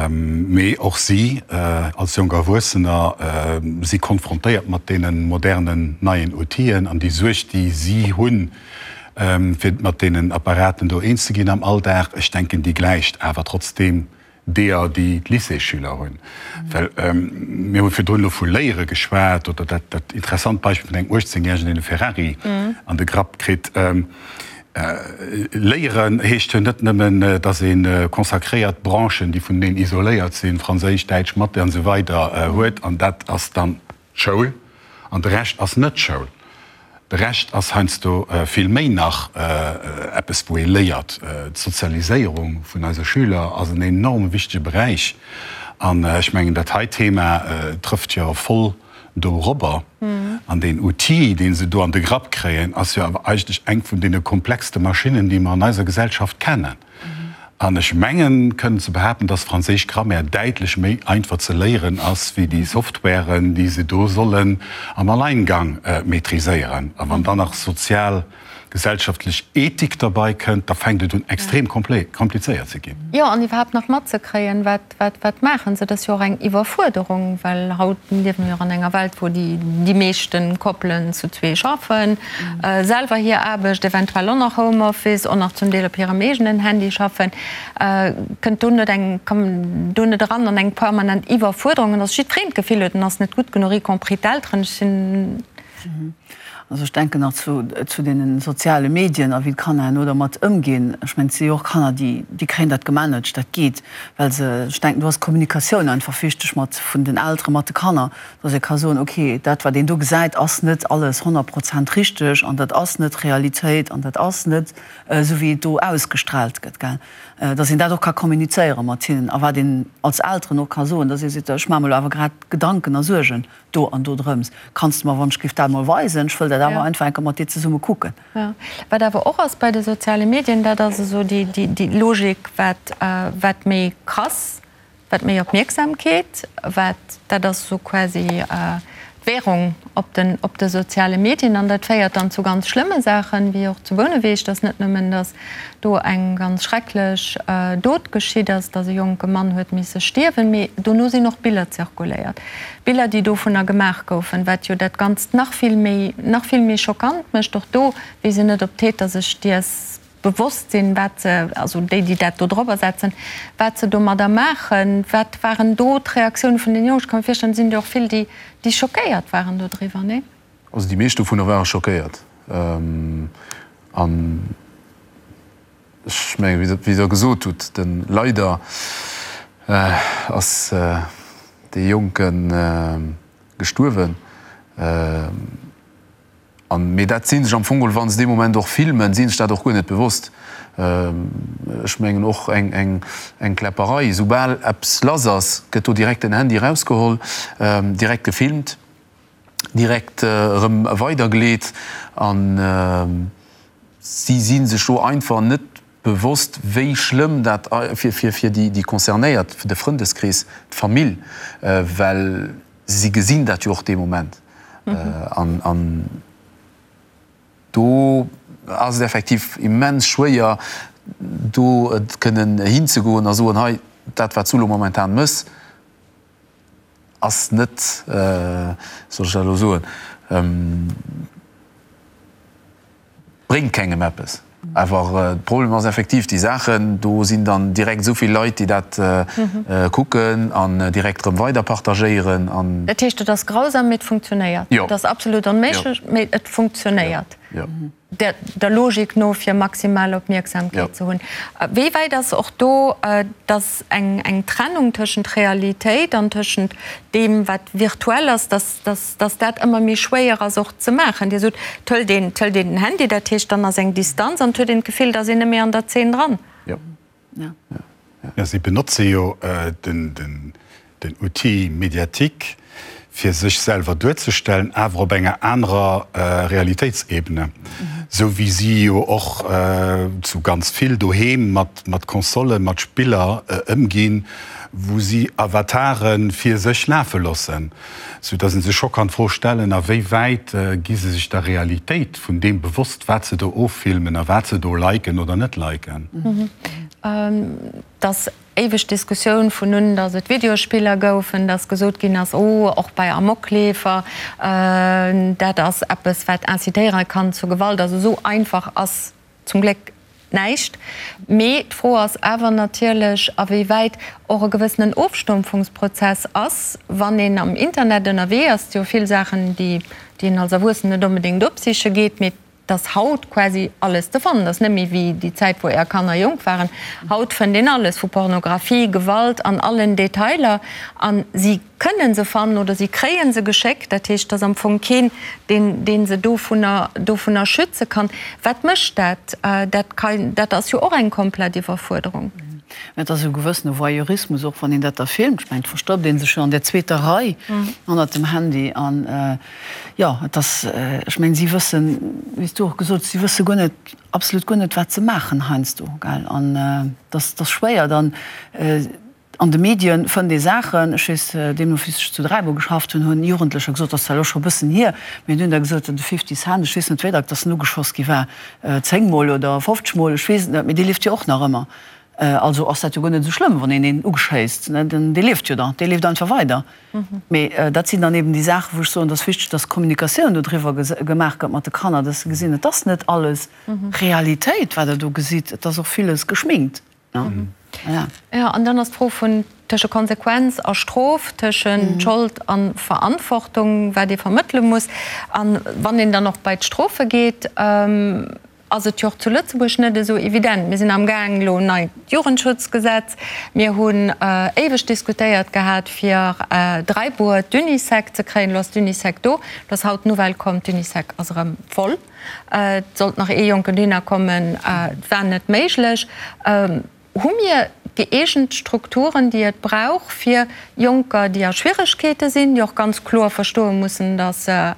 Mee och si als jonk Erwuessener si konfrontéiert mat deene modernen neien Outiller an déi Suerg, déi si hunn, fir mat deenen Apparaten do eens ze ginn am Alldag, ech denken, déi gläicht awer trotzdeem deeër, déi d'Lycéesschüler hunn. Well mir hu virdrun elo vu Léiere geschwat oder dat, dat interessant Beispill vun engem 18 Järegen, deen e Ferrari an de Grapp kritt. Léieren heescht jo net nëmmen, datt ee consacréiert Branchen, déi vuneneen isoléiert sinn, Franséisch, Däitsch, Mathé an esou weider, huet. An dat ass dann d'Schoul. An de Rescht ass net Schoul. De Rescht ass heiansdo vill méi nach eppes, wou ee léiert. D'Sozialiséierung vun eise Schüler ass en enorm wichtege Beräich. An ech mengen, dat hei Thema trëfft jo voll dorobber. An deen Outil, dee se do an de Grapp kréien, ass jo awer eigentlech eng vun deene komplexste Maschinnen, déi mer an eiser Gesellschaft kennen. An ech mengen, kënnen ze behaapten, dass franséisch Grammaire däitlech méi einfach ze léieren ass, wéi déi Softwaren, déi se do sollen am Alleingang maîtriséieren. A wann dann nach sozial, Gesellschaftlech Ethik derbei kënnt, da fänkt et un extrem komplizéiert ze ginn. Jo, an iwwerhaapt nach matzekréien, wat, wat, wat maachen se. Dat ass jo och eng Iwwerfuerderung, well haut liewe mir jo an enger Welt, wou déi, déi meeschte Koppelen zu zwee schaffen, selwer hir Aarbecht, eventuell och nach Homeoffice, och nach zum Deel op hirem eegenen Handy schaffen. Kënnt do net eng, komm do net eran an eng permanent Iwwerfuerderung, an dass jiddwereen d'Gefill huet, en ass net gutt genuch, y compris d'Elteren. Ech sinn. Also ech denken nach zu, zu deene soziale Medien a wéi d'Kanner herno dermat ëmginn. Ech mengen, et si jo och Kanner, déi, déi kréien dat gemanagt, dat geet, well se, ech denken, do ass d'Kommunikatioun einfach wichteg mat, vun den Eltere mat de Kanner, dass ee ka soen, okay, dat wat een do gesäit, ass net alles 100 Prozent richteg an dat ass net Realitéit an dat ass net esou wéi et do ausgestrahlt gëtt, gell. Dass een dat och ka kommunizéiere mat hinnen a wat een als Elteren och ka soen, dass ee seet, ech maache mer elo awer grad Gedanken a Suergen do an do drëms. Kanns de mer wann ech giff dat mol weisen? Ech wëll dat awer einfach enker mat dir zesumme kucken. Jo. Wat awer och ass bei de soziale Medien, dat ass esou déi, déi, déi Logik, wat, wat méi krass, wat méi Opmierksamkeet, wat, dat ass esou quasi d'Währung op den, op de soziale Medien. An dat féiert dann zu ganz schlëmme Saachen, wéi och zu Bouneweg, dass net nëmmen, dass do eng ganz schrecklech Dot geschitt ass, dass e jonke Mann huet misse stierwen, mee dono sinn och Biller zirkuléiert, Biller, déi dovunner gemaach goufen, wat jo dat Ganzt nach vill méi, nach vill méi schockant mécht. Och do weess een net, ob d'Täter sech deers bewosst sinn, wat se, also déi, déi dat do drobber setzen, wat se domadder maachen. Wat waren do d'Reaktioune vun den Jongen? Ech ka mir virstellen, et sinn der och vill, déi, déi schockéiert waren dodriwwer, nee? Also déi meescht dovunner ware schockéiert. An ech mengen, wéi Der gesot hutt, de leider ass dee Jonke gestuerwen. An, mee dat si sech am Fong geholl, wa se dee Moment och filmen, si sech dat och guer net bewosst. Ech mengen och eng Kläpperei, soubal eppes lass ass, gëtt do direkt den Handy erausgeholl, direkt gefilmt. direkt erëm weidergeleet an si si sech do einfach net bewosst, wéi schlëmm dat fir fir déi Concernéiert, fir de Frëndeskrees, d'Famill, well si gesinn dat jo och dee Moment an an do ass et effektiv immens schwéier do kënnen hinzegoen a soen, hei dat wat s du elo momentan mëss, Ass net, soll ech dat elo soen, bréngt kengem eppes. Awer de Problem ass effektiv, déi Saachen, do sinn dann direkt esou vill Leit, déi dat kucken an direkt erëm weider partagéieren an. Dat heescht, et ass grausam, mee et funktionéiert. Et ass absolut onméiglech, mee et funktionéiert. Der Logik no, fir maximal Opmierksamkeet ze hunn. Wéi wäit ass och do, dass eng eng Trennung tëschent Realitéit an tëschent deem, wat virtuell ass, dass dass dass dat ëmmer méi schwéier ass och ze maachen? Dir sot, et hëlt een, et hëlt een den Handy, dat heescht, dann ass eng Distanz an et huet een d'Gefill, et ass een net méi an der Zeen dran. Jo. Ja, si benotze jo den Outil médiatique, fir sech selwer duerzestellen, awer op enger anerer Realitéitsebene, esou wéi si jo och zu ganz vill doheem mat Consolen, mat Spiller ëmginn, wou si Avatare fir sech lafe loossen. Sou dass ee sech scho kann d'Fro stellen, a wéi wäit gi se sech der Realitéit vun deem bewosst, wat se do offilmen a wat se do liken oder net liken. Et ass éiweg d'Diskussioun vun un, dass et Videospiller goufen, dass gesot ginn ass, oh, och bei Amokleefer, dat ass eppes, wat incitéiere kann zu Gewalt. Also esou einfach ass Zum Gléck näischt. Mee d'Fro ass awer natierlech, a wéi wäit och e gewëssenen Ofstumpfungsprozess ass, wann een am Internet ënnerwee ass. Et si jo vill Saachen, déi een als Erwuessenen net onbedéngt opsiche geet, mee et ass haut quasi alles ze fannen. Et ass net méi wéi déi Zäit, wou Är Kanner jonk waren. Haut fënnt een alles, vu Pornografie, Gewalt an allen Detailer. A si kënnen se fannen oder si kréien se geschéckt, dat heescht, et ass am Fong keen, deen, dee se dovunner, dovunner schütze kann. Wat mécht dat? Dat kann, dat ass jo och eng komplett Iwwerfuerderung. Mä et ass e gewëssene Voyeurismus och, wann een dat da filmt. Ech mengen, et verstoppt ee sech jo an der zweeter Rei hannert dem Handy. An, jo, et ass, ech mengen, si wëssen, wéi s du och gesot hues, si wësse guer net, absolut guer net, wat se maachen heiansdo, gell. An et ass, et ass schwéier dann. An de Medien fënnt ee Saachen, ech weess, deemno wéi ech zu Dräibuer geschafft hunn, hunn Jugendlecher gesot, dat ass zwar elo scho e bëssen hier, mee hunn da gesot, de Fifty Cent, ech weess net wéi dack dass en ugeschoss gi war, 10 mol oder 50 mol, ech weess et net, mee dee lieft jo och nach ëmmer. Also ass dat jo guer net esou schlëmm, wann een een ugeschéisst, ne, dee lieft jo dann, dee lieft einfach weider. Mee dat sinn dann eben déi Saachen, wou ech soen, et ass wichteg, dass Kommunikatioun dodriwwer gemaach gëtt mat de Kanner, dass se gesinn, et ass net alles Realitéit, wat der do gesitt, et ass och villes geschminkt. Jo, an dann ass d'Fro vun tësche Konsequenz a Strof, tëschent Schold a Verantwortung, wat ee vermëttele muss. A wann een dann och bei d'Strofe geet, ass et jo och zu Lëtzebuerg net esou evident. Mir sinn amgaang elo en neit Jugendschutzgesetz. Mir hunn éiweg diskutéiert gehat, fir Dräibuer d'Unisec ze kréien. Elo ass d'Unisec do. Elo ass haut d'Nouvelle komm, d'Unisec ass erëm voll. Et sollt nach ee Jonken dohinner kommen, et war net méiglech. Hu mir gëeegent Strukturen, déi et brauch, fir Jonker, déi a Schwieregkeete sinn, déi och ganz kloer verstoe mussen, datt se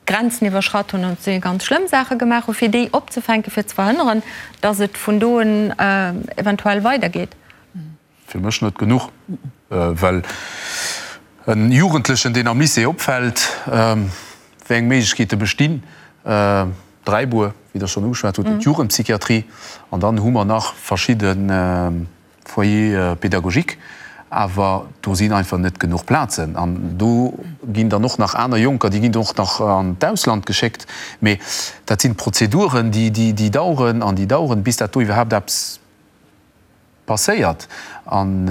Grenzen iwwerschratt hunn an si ganz schlëmm Saache gemaach hunn, fir déi opzefänken, fir ze verhënneren, datt et vun do un eventuell weidergeet? Fir mech net genuch, well en Jugendlechen, deen am Lycée opfält, wéi eng Méiglechkeete bestinn, Dräibuer, wéi Der schonn ugeschwat hutt, d'Jugendpsychiatrie, an dann hu mer nach verschidde Foyers pédagogiques, awer do sinn einfach net genuch Plazen. An do ginn dann och nach aner Jonker, déi ginn och nach an d'Ausland geschéckt, mee dat sinn Prozeduren, déi daueren an déi daueren, bis dat do iwwerhaapt eppes Passéiert. An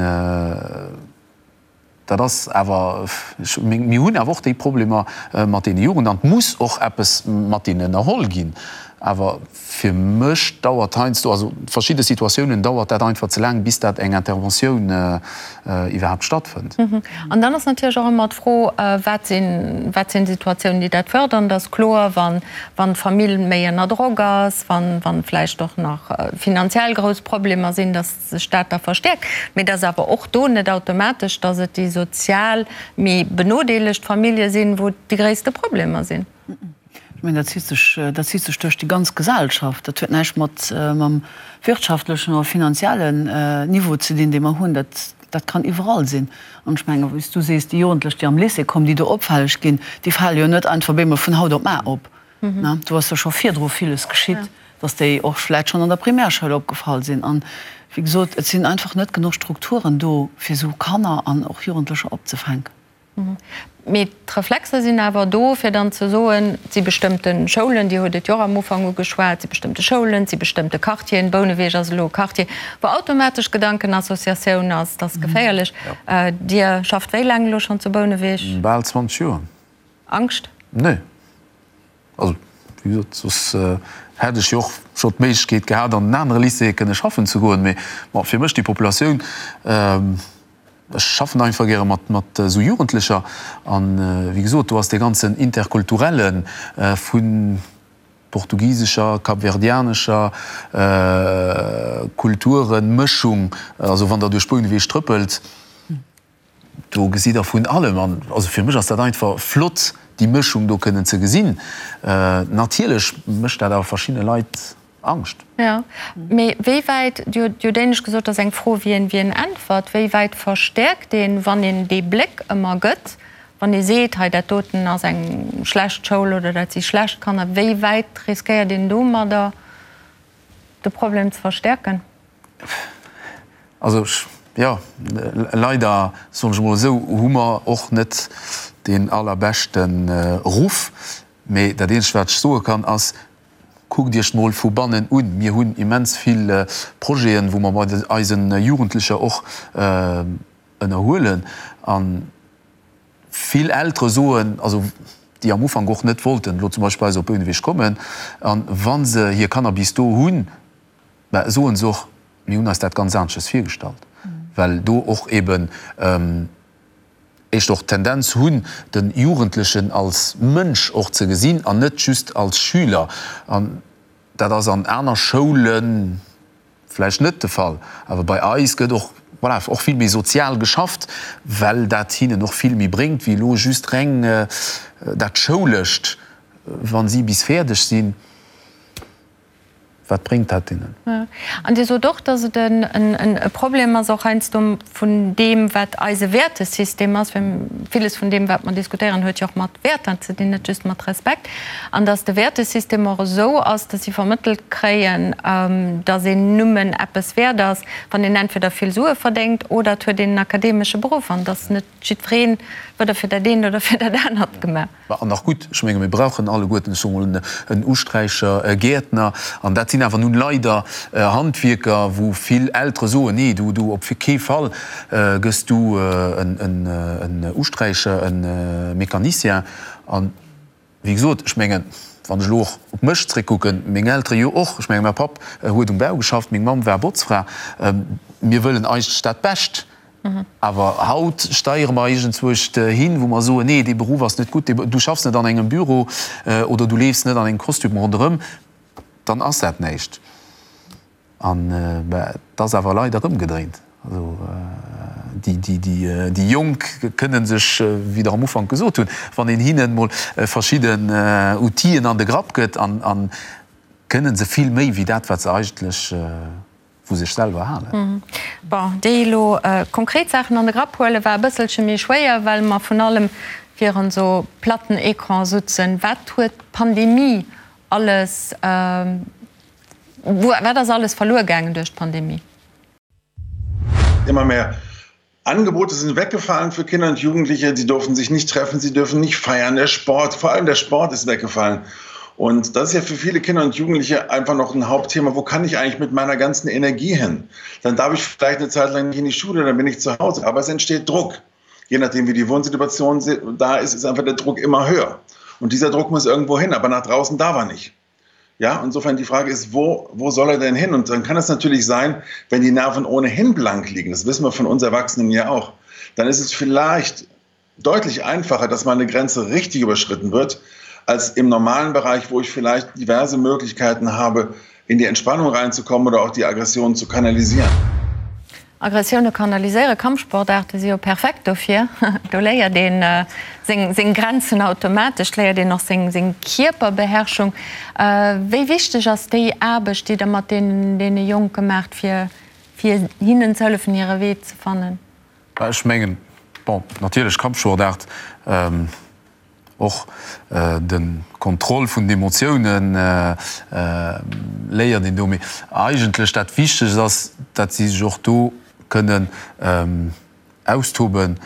dat ass awer, mir hunn awer och déi Problemer mat deene Jugend an et muss och eppes mat deenen ënnerholl ginn. Awer fir mech dauert heiansdo, also verschidde Situatiounen dauert dat einfach ze laang, bis dat eng Interventioun iwwerhaapt stattfënnt. An dann ass natierlech och ëmmer d'Fro, wat sinn, wat sinn Situatiounen, déi dat fërdern? Dat ass kloer, wann, wann d'Famill méi ënner Drock ass, wann, wann vläicht och nach finanziell grouss Problemer sinn, dass sech dat da verstäerkt. Mee et ass awer och do net automatesch, dass et déi sozial méi benodeelegt Famillje sinn, wou déi gréisste Problemer sinn. Ech mengen, dat zitt sech, dat zitt sech duerch déi ganz Gesellschaft. Dat huet näischt mat, mam wirtschaftlechen oder finanziellen Niveau ze dinn, dee mer hunn. Dat, dat kann iwwerall sinn. An ech mengen, wéi s du sees, déi Jugendlech, déi am Lycée kommen, déi do opfälleg ginn, déi fale jo net einfach op eemol vun haut op mar op. Do ass jo scho virdru villes geschitt, dass déi och vläicht schonn an der Primärschoul opgefall sinn. An, wéi gesot, et sinn einfach net genuch Strukturen do, fir esou Kanner an och Jugendlecher opzefänken. Mee d'Reflexer sinn awer do, fir dann ze soen, et si bestëmmte Schoulen, Dir hutt et jo och am Ufank ugeschwat, et si bestëmmte Schoulen, et si bestëmmte Quartieren, Bouneweg ass elo e Quartier, wou automatesch Gedankenassociatioun ass, dat ass geféierlech. Dir schafft wéi laang elo schonn zu Bouneweg? Bal 20 Joer. Angscht? Nee. Also, wéi gesot, soss hätt ech jo och scho d'Méiglechkeet gehat, an en anere Lycée kënne schaffen ze goen. Mee bon, fir mech déi Populatioun, ech schaffen einfach gäre mat, mat esou Jugendlecher. An, wéi gesot, do ass dee ganzen Interkulturelle vu portugisescher, kapverdianescher Kulturenmëschung, also wann Der duerch Bouneweg trëppelt, Do gesitt Der vun allem. An also fir mech ass dat einfach flott, déi Mëschung do kënnen ze gesinn. Natierlech mécht dat awer verschiddene Leit Angscht. Jo, mee wéi wäit, Dir hutt jo d'éinescht gesot, dat ass eng Fro, wien wien äntwert, wéi wäit verstäerkt een, wann een dee Bléck ëmmer gëtt, wann ee seet, hei dat doten ass eng schlecht Schoul oder dat si schlecht Kanner, wéi wäit riskéiert een domadder de Problem ze verstäerken? Also, jo, leider, soen ech emol esou, hu mer och net deen allerbeschte Ruff. Mee dat eenzegt, wat ech soe kann, ass, Kuckt Iech mol vu bannen un. Mir hunn immens vill Projeten, wou mer mat eise Jugendlecher och ënnerhuelen. A vill Eltere soen, also déi am Ufank och net wollten elo zum Beispill bei eis op Bouneweg kommen, a wa se hir Kanner bis do hunn, Mä soen se och, mir hunn eis dat ganz aneschters virgestallt, well do och eben éischter och d'Tendenz hunn, de Jugendlechen als Mënsch och ze gesinn an net just als Schüler. An dat ass an aner Schoule vläicht net de Fall, awer bei eis gëtt och, voilà, och vill méi sozial geschafft, well dat hinnen och vill méi bréngt wéi elo just reng dat Schoulescht, wa si bis fäerdeg sinn. Wat bréngt dat deenen? An Dir sot och, datt et e Problem ass och heiansdo vun deem, wat eise Wäertesystem ass, well villes vun deem, wat mer diskutéieren, huet jo och mat Wäerter ze dinn, net just mat Respekt, an datt de Wäertesystem och esou ass, datt si vermëttelt kréien, datt een nëmmen eppes wäert ass, wann een entweder vill Sue verdéngt oder et huet een en akademesche Beruff, an datt net jiddweree weder fir dat eent oder fir dat anert gemaach. An nach gutt, ech menge mir brauchen alleguerten, ech soe mol, en Usträicher, e Gäertner. An dat sinn awer nun leider Handwierker, wou vill Eltere soen, nee, du, du, op kee Fall gëss du en Usträicher, e Mécanicien. An wéi gesot, ech mengen, wann ech elo och op mech zréckkucken, meng Eltere jo och, ech menge mäi Papp huet um Bau geschafft, meng Mamm war Botzfra, mir wëllen eigentlech dat Bescht. Awer haut steiere mer iergendzwousch hin, wou mer soen, nee, dee Beruff ass net gutt, du schaffs net an engem Büro oder du leefs net an engem Kostüm ronderëm, dann ass dat näischt. An et ass awer leider ëmgedréint. Also déi Jonk kënne sech, wéi Der am Ufank gesot hunn, wann een hinnen emol verschidden Outile an de Grapp gëtt, kënne se vill méi wéi dat, wat se eigentlech vu sech selwer halen. Bon, déi elo konkret Saachen an de Grapp huelen, war e bësselche méi schwéier, well mer vun allem virun esou platten Ecran sutzen. Wat huet d'Pandemie alles, wat ass alles verluer gaangen duerch d'Pandemie? Immer mehr Angebote sind weggefallen für Kinder und Jugendliche. Sie durften sich nicht treffen, sie dürfen nicht feiern. Der Sport, vor allem der Sport ist weggefallen. Und das ist ja für viele Kinder und Jugendliche einfach noch ein Hauptthema. Wo kann ich eigentlich mit meiner ganzen Energie hin? Dann darf ich vielleicht eine Zeit lang nicht in die Schule, dann bin ich zu Hause. Aber es entsteht Druck. Je nachdem, wie die Wohnsituation da ist, ist einfach der Druck immer höher. Und dieser Druck muss irgendwo hin, aber nach draußen darf er nicht. Ja, insofern die Frage ist, wo, wo soll er denn hin? Und dann kann es natürlich sein, wenn die Nerven ohnehin blank liegen, das wissen wir von uns Erwachsenen ja auch, dann ist es vielleicht deutlich einfacher, dass mal eine Grenze richtig überschritten wird, als im normalen Bereich, wo ich vielleicht diverse Möglichkeiten habe, in die Entspannung reinzukommen oder auch die Aggression zu kanalisieren. Aggressioune kanaliséieren, Kampfsportaarte si jo perfekt dofir. Do léiert een seng Grenzen automatesch, léiert een och seng Kierperbeherrschung. Wéi wichteg ass déi Aarbecht, déi Der mat deene Jonke maacht, fir hinnen ze hëllefen, hire Wee ze fannen? Ech mengen, bon, natierlech Kampfsportaart. Och de Kontroll vun den Emotiounen léiert een do. Mee eigentlech dat Wichtegst ass, dat si sech och do kënnen austoben,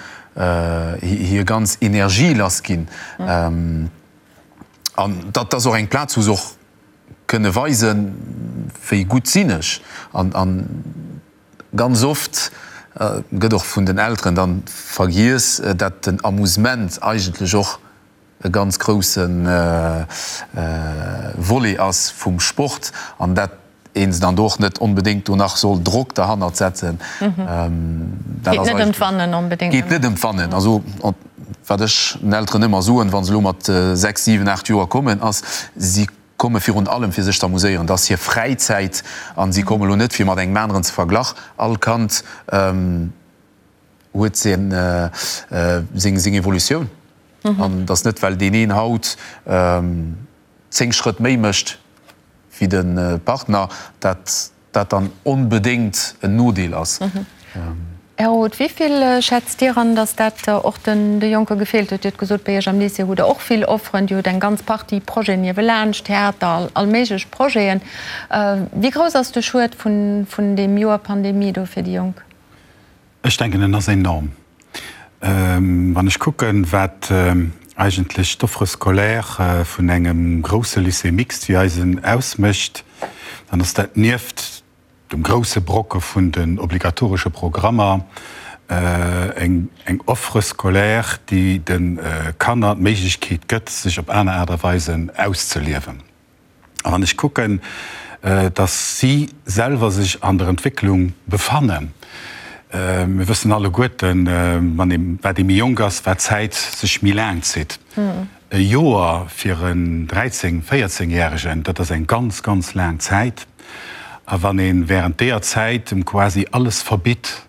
hir ganz Energie lass ginn. An dat ass och eng Plaz, wou se och kënne weisen, wéi gutt sinn ech. An Ganz oft gëtt och vun den Elteren dann vergiess, dat den Amusement eigentlech och e ganz grousse Volet ass vum Sport an dat een se dann do och net onbedéngt do nach soll Drock derhannert setzen. Dat geet net ëm d'Wannen onbedéngt. Geet net ëm d'Wannen. Also wat ech den Elteren ëmmer soen, wa se elo mat 6, 7, 8 Joer kommen, ass, si komme virun allem fir sech z'amuséieren, dat ass hir Fräizäit an si komme lo net fir mat engem aneren ze verglach. All Kand huet seng seng Evolutioun an et ass net well deen een haut 10 Schrëtt méi mécht wéi de Partner, dat dat dann onbedéngt en Nodeel ass. Här Roth, wéi vill schätzt Dir an, datt dat och de Jonke gefeelt huet? Dir hutt gesot, bei Iech am Lycée hutt Der och vill Offeren, Dir hutt eng ganz Partie Projeten niewelaanscht, Theater, all méiglech Projeten. Wéi grouss ass de Schued vun deem Joer Pandemie do fir déi Jonk? Ech denken, en ass enorm. Wann ech kucken, wat eigentlech d'Offre scolaire vun engem grousse Lycée mixte wéi eisen ausmécht, dann ass dat nieft dem grousse Brocke vun den obligatoresche Programmer eng Offre scolaire, déi de Kanner d'Méiglechkeet gëtt, sech op aner Aart a Weisen auszeliewen. A wann ech kucken, dass si selwer sech an der Entwécklung befannen, mir wëssen alleguerten, wann ee, wat ee méi jonk ass, wat d'Zäit sech méi laang zitt. E Joer fir en 13-, 14 Järegen, dat ass eng ganz, ganz laang Zäit. A wann ee während deeër Zäit em quasi alles verbitt,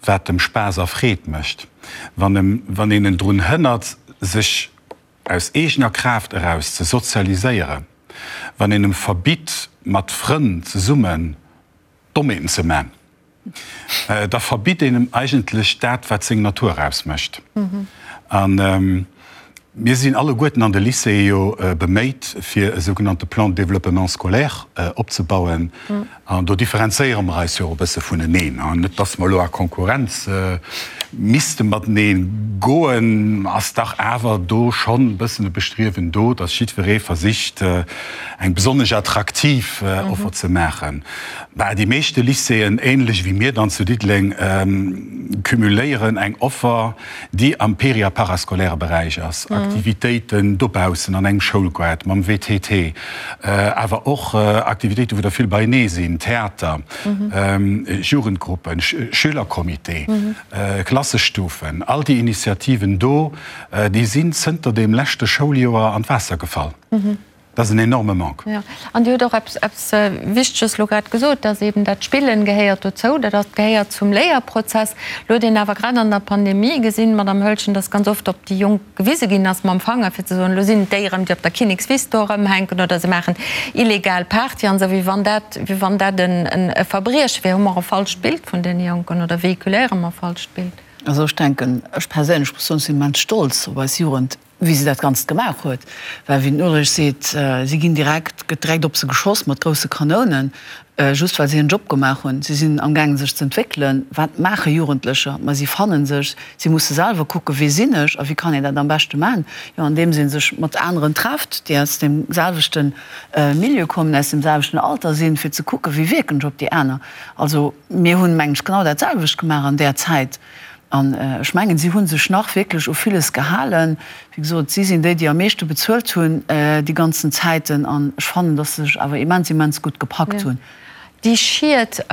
wat em Spaass a Freed mécht, wann em, wann een en drun hënnert, sech aus eegener Kraaft eraus ze sozialiséieren. Wann een em verbitt, mat Frënn zesummen Dommheeten ze man, da verbitt een em eigentlech dat, wat seng Natur ausmécht. A mir sinn alleguerten an de Lycéeë jo beméit, fir e sougenannte Plan de développement scolaire opzebauen. An do differenzéiere mer eis jo och e bësse vuneneen. Net, dass mer elo a Konkurrenz misste matenee goen, ass dach awer do schonn e bëssen e Bestriewen do, dass jiddweree versicht, eng besonnesch attraktiv Offer ze maachen. Bah, déi meeschte Lycéeën, ähnlech wéi mir dann zu Diddeleng, cumuléieren eng Offer, déi am péri a parascolaire Beräich ass, Aktivitéiten dobaussen an engem Schoulgaart, mam WTT, awer och Aktivitéiten, wou der vill beienee sinn, Theater, Jugendgruppen, Schülercomité, Klassestufen, all déi Initiativen do, déi sinn zënter deem leschte Schouljoer an d'Waasser gefall. Dat ass en enorme Manque. Jo, an Dir hutt och eppes, eppes Wichteges elo grad gesot, dass eben dat Spillen gehéiert dozou, dat ass, gehéiert zum Léierprozess. Elo huet een awer grad an der Pandemie gesinn, Madamm Hölschen, dass ganz oft op déi Jonk gewise ginn ass mam Fanger, fir ze soen, elo sinn et déi erëm, déi op der Kinnekswiss do erëmhänken oder se maachen illegal Party an esou, wéi wann dat, wéi wann dat en e Verbrieche wär. Hu mer e falscht Bild vun deene Jonken oder véhiculéiere mer e falscht Bild? Also ech denken, ech perséinlech muss soen, ech sinn immens stolz op eis Jugend, wéi se dat Ganzt gemaach huet, well wéi den Ulrich seet, si ginn direkt, gëtt direkt op se geschoss mat grousse Kanounen, just well se hiren Job gemaach hunn. Si sinn amgaangen sech z'entwéckelen. Wat maache Jugendlecher? Ma si fannen sech, si musse selwer kucken, wie sinn ech a wéi kann een dat am beschte maachen? Jo, andeems ee sech mat aneren trefft, déi aus deem selwechte Milieu kommen, aus deem selwechten Alter sinn, fir ze kucken, wéi wierken ech op déi aner. Also mir hunn, mengen ech, genau dat selwecht gemaach an där Zäit. An ech mengen, si hu sech nach wierklech u villes gehalen. Wéi gesot, si sinn déi, déi am meeschte bezuelt hunn déi ganzen Zäiten. An ech fannen, datt se sech awer immens, immens gutt gepackt hunn. Déi Schied,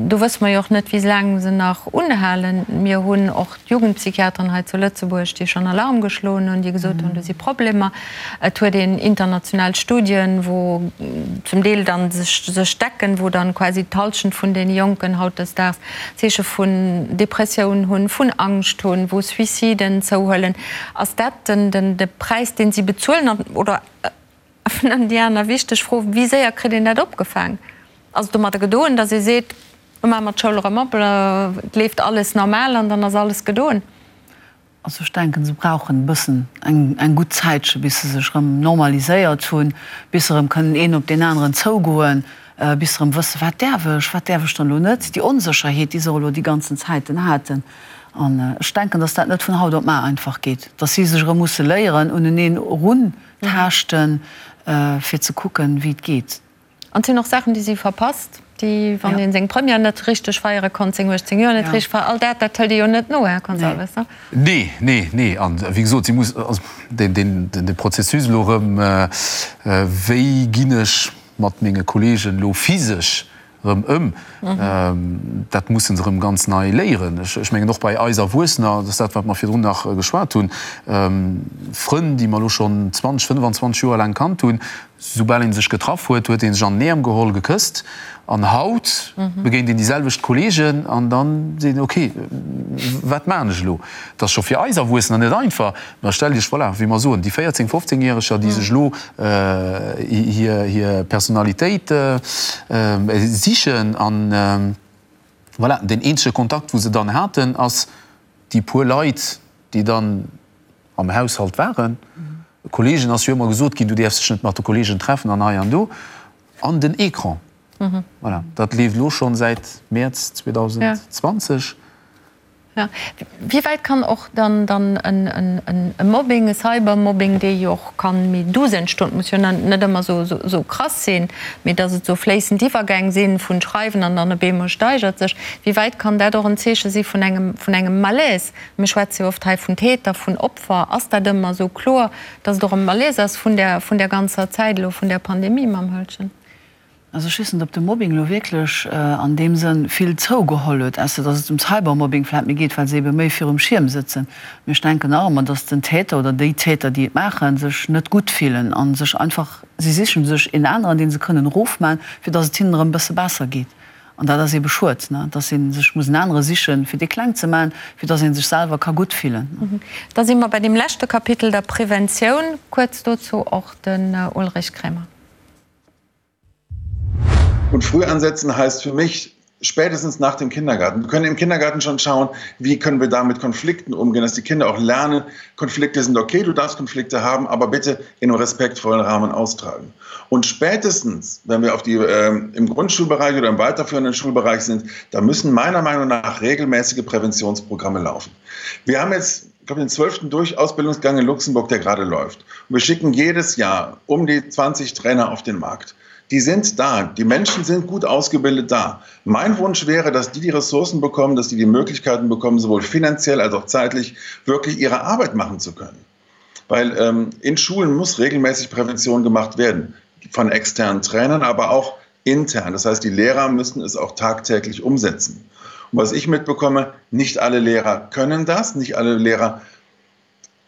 do wësse mer jo och net, wéi laang se nach unhalen. Mir hunn och d'Jugendpsychiateren hei zu Lëtzebuerg, déi schonn Alarm geschloen hunn, déi gesot hunn, do si Problemer. Et huet een international Studien, wou zum Deel dann sech sech decken, wou dann quasi d'Halschent vun deene Jonken hautdesdaags Zeeche vun Depressioun hunn, vun Angscht hunn, wou Suiciden zouhuelen. Ass dat den den de Präis, deen si bezuelen? An, oder an déi aner wichteg Fro, Wéi séier kritt een dat opgefaang? Ass et domadder gedoen, datt ee seet, Lo maache mer d'Schoul erëm op, et leeft alles normal an dann ass alles gedoen? Also ech denken, se brauchen e bëssen eng eng gutt Zäitche bis se sech erëm normaliséiert hunn, bis se erëm kënnen een op deen aneren zougoen, bis se erëm wëssen, wat däerf ech, wat däerf ech dann elo net, déi Onsécherheet, déi se och elo déi ganzen Zäiten haten. An ech denken, datt dat net vun haut op mar einfach geet, datt si sech erëm musse léieren, uneneen eruntaaschten, fir ze kucken, wéi et geet. An et sinn och Saachen, déi si verpasst, déi, wann ee seng Première net richteg feiere konnt, seng 18 Joer net richteg feieren, all dat, dat hëlt ee jo net no, Här Gonçalves, ne? Nee, nee, nee. An wéi gesot, si muss, also deen, deen, dee Prozessus elo erëm, wéi ginn ech mat menge Kolleegen elo physesch erëm ëm, dat musse se erëm ganz nei léieren. Ech mengen och bei eis Erwuessener, dat ass dat, wat mer virdrun nach geschwat hunn, Frënn, déi mer elo schonn 20, 25 Joer laang kannt hunn, Soubal een sech getraff huet, huet een sech an den Äerm geholl, gekësst. An haut begéint een déi selwecht Kolleegen an dann seet een, ok, wat maachen ech elo? Et ass scho fir eis Erwuessener net einfach. Mä stellt Iech, voilà, wéi mer soen, déi 14-, 15 Järeger, déi sech elo hir Personalitéit sichen an, voilà, deen eenzege Kontakt, wou se dann haten, ass déi puer Leit, déi dann am Haushalt waren. Kollegen ass jo ëmmer gesot ginn, du däerfs dech net mat de Kollegen treffen an hei an do. An den Ecran. Voilà, dat leeft elo schonn säit Mäerz 2020. Jo. Wéi wäit kann och dann dann e Mobbing, e Cybermobbing, dee jo och kann méi douce entstoen, muss jo net ëmmer esou krass sinn, mee datt et esou fléissend Iwwergäng sinn vun Schreiwen an dann op eemol steigert sech, wéi wäit kann dat och en Zeeche si vun engem vun engem Malaise? Mir schwätze jo oft hei vun Täter, vun Opfer. Ass dat ëmmer esou kloer, datt et och e Malaise ass vun där, vun där ganzer Zäit elo, vun där Pandemie mam Höltgen? Also ech weess net, ob de Mobbing elo wierklech an deem Sënn vill zougeholl huet, ausser datt et ëm Cybermobbing vläicht méi geet, well se ebe méi virum Schierm sëtzen. Mee ech denken nach ëmmer, datt den Täter oder déi Täter, déi et maachen, sech net gutt fillen a sech einfach, si siche sech een aneren, dee se kënnen erofman, fir datt et hinnen erëm e bësse besser geet. An dat ass eebe schued, dass ee sech muss en anere sichen, fir dee kleng ze maachen, fir dass ee sech selwer ka gutt fillen. Da si mer bei deem leschte Kapitel, der Preventioun. Kuerz dozou och den Ulrich Kremer. Und früh ansetzen heißt für mich spätestens nach dem Kindergarten. Wir können im Kindergarten schon schauen, wie können wir da mit Konflikten umgehen, dass die Kinder auch lernen, Konflikte sind okay, du darfst Konflikte haben, aber bitte in einem respektvollen Rahmen austragen. Und spätestens, wenn wir auf die, äh, im Grundschulbereich oder im weiterführenden Schulbereich sind, da müssen meiner Meinung nach regelmäßige Präventionsprogramme laufen. Wir haben jetzt ich glaube, den zwölften Durchausbildungsgang in Luxemburg, der gerade läuft. Und wir schicken jedes Jahr um die 20 Trainer auf den Markt. Die sind da. Die Menschen sind gut ausgebildet da. Mein Wunsch wäre, dass die die Ressourcen bekommen, dass die die Möglichkeiten bekommen, sowohl finanziell als auch zeitlich wirklich ihre Arbeit machen zu können. Weil ähm, in Schulen muss regelmäßig Prävention gemacht werden von externen Trainern, aber auch intern. Das heißt, die Lehrer müssen es auch tagtäglich umsetzen. Und was ich mitbekomme, nicht alle Lehrer können das, nicht alle Lehrer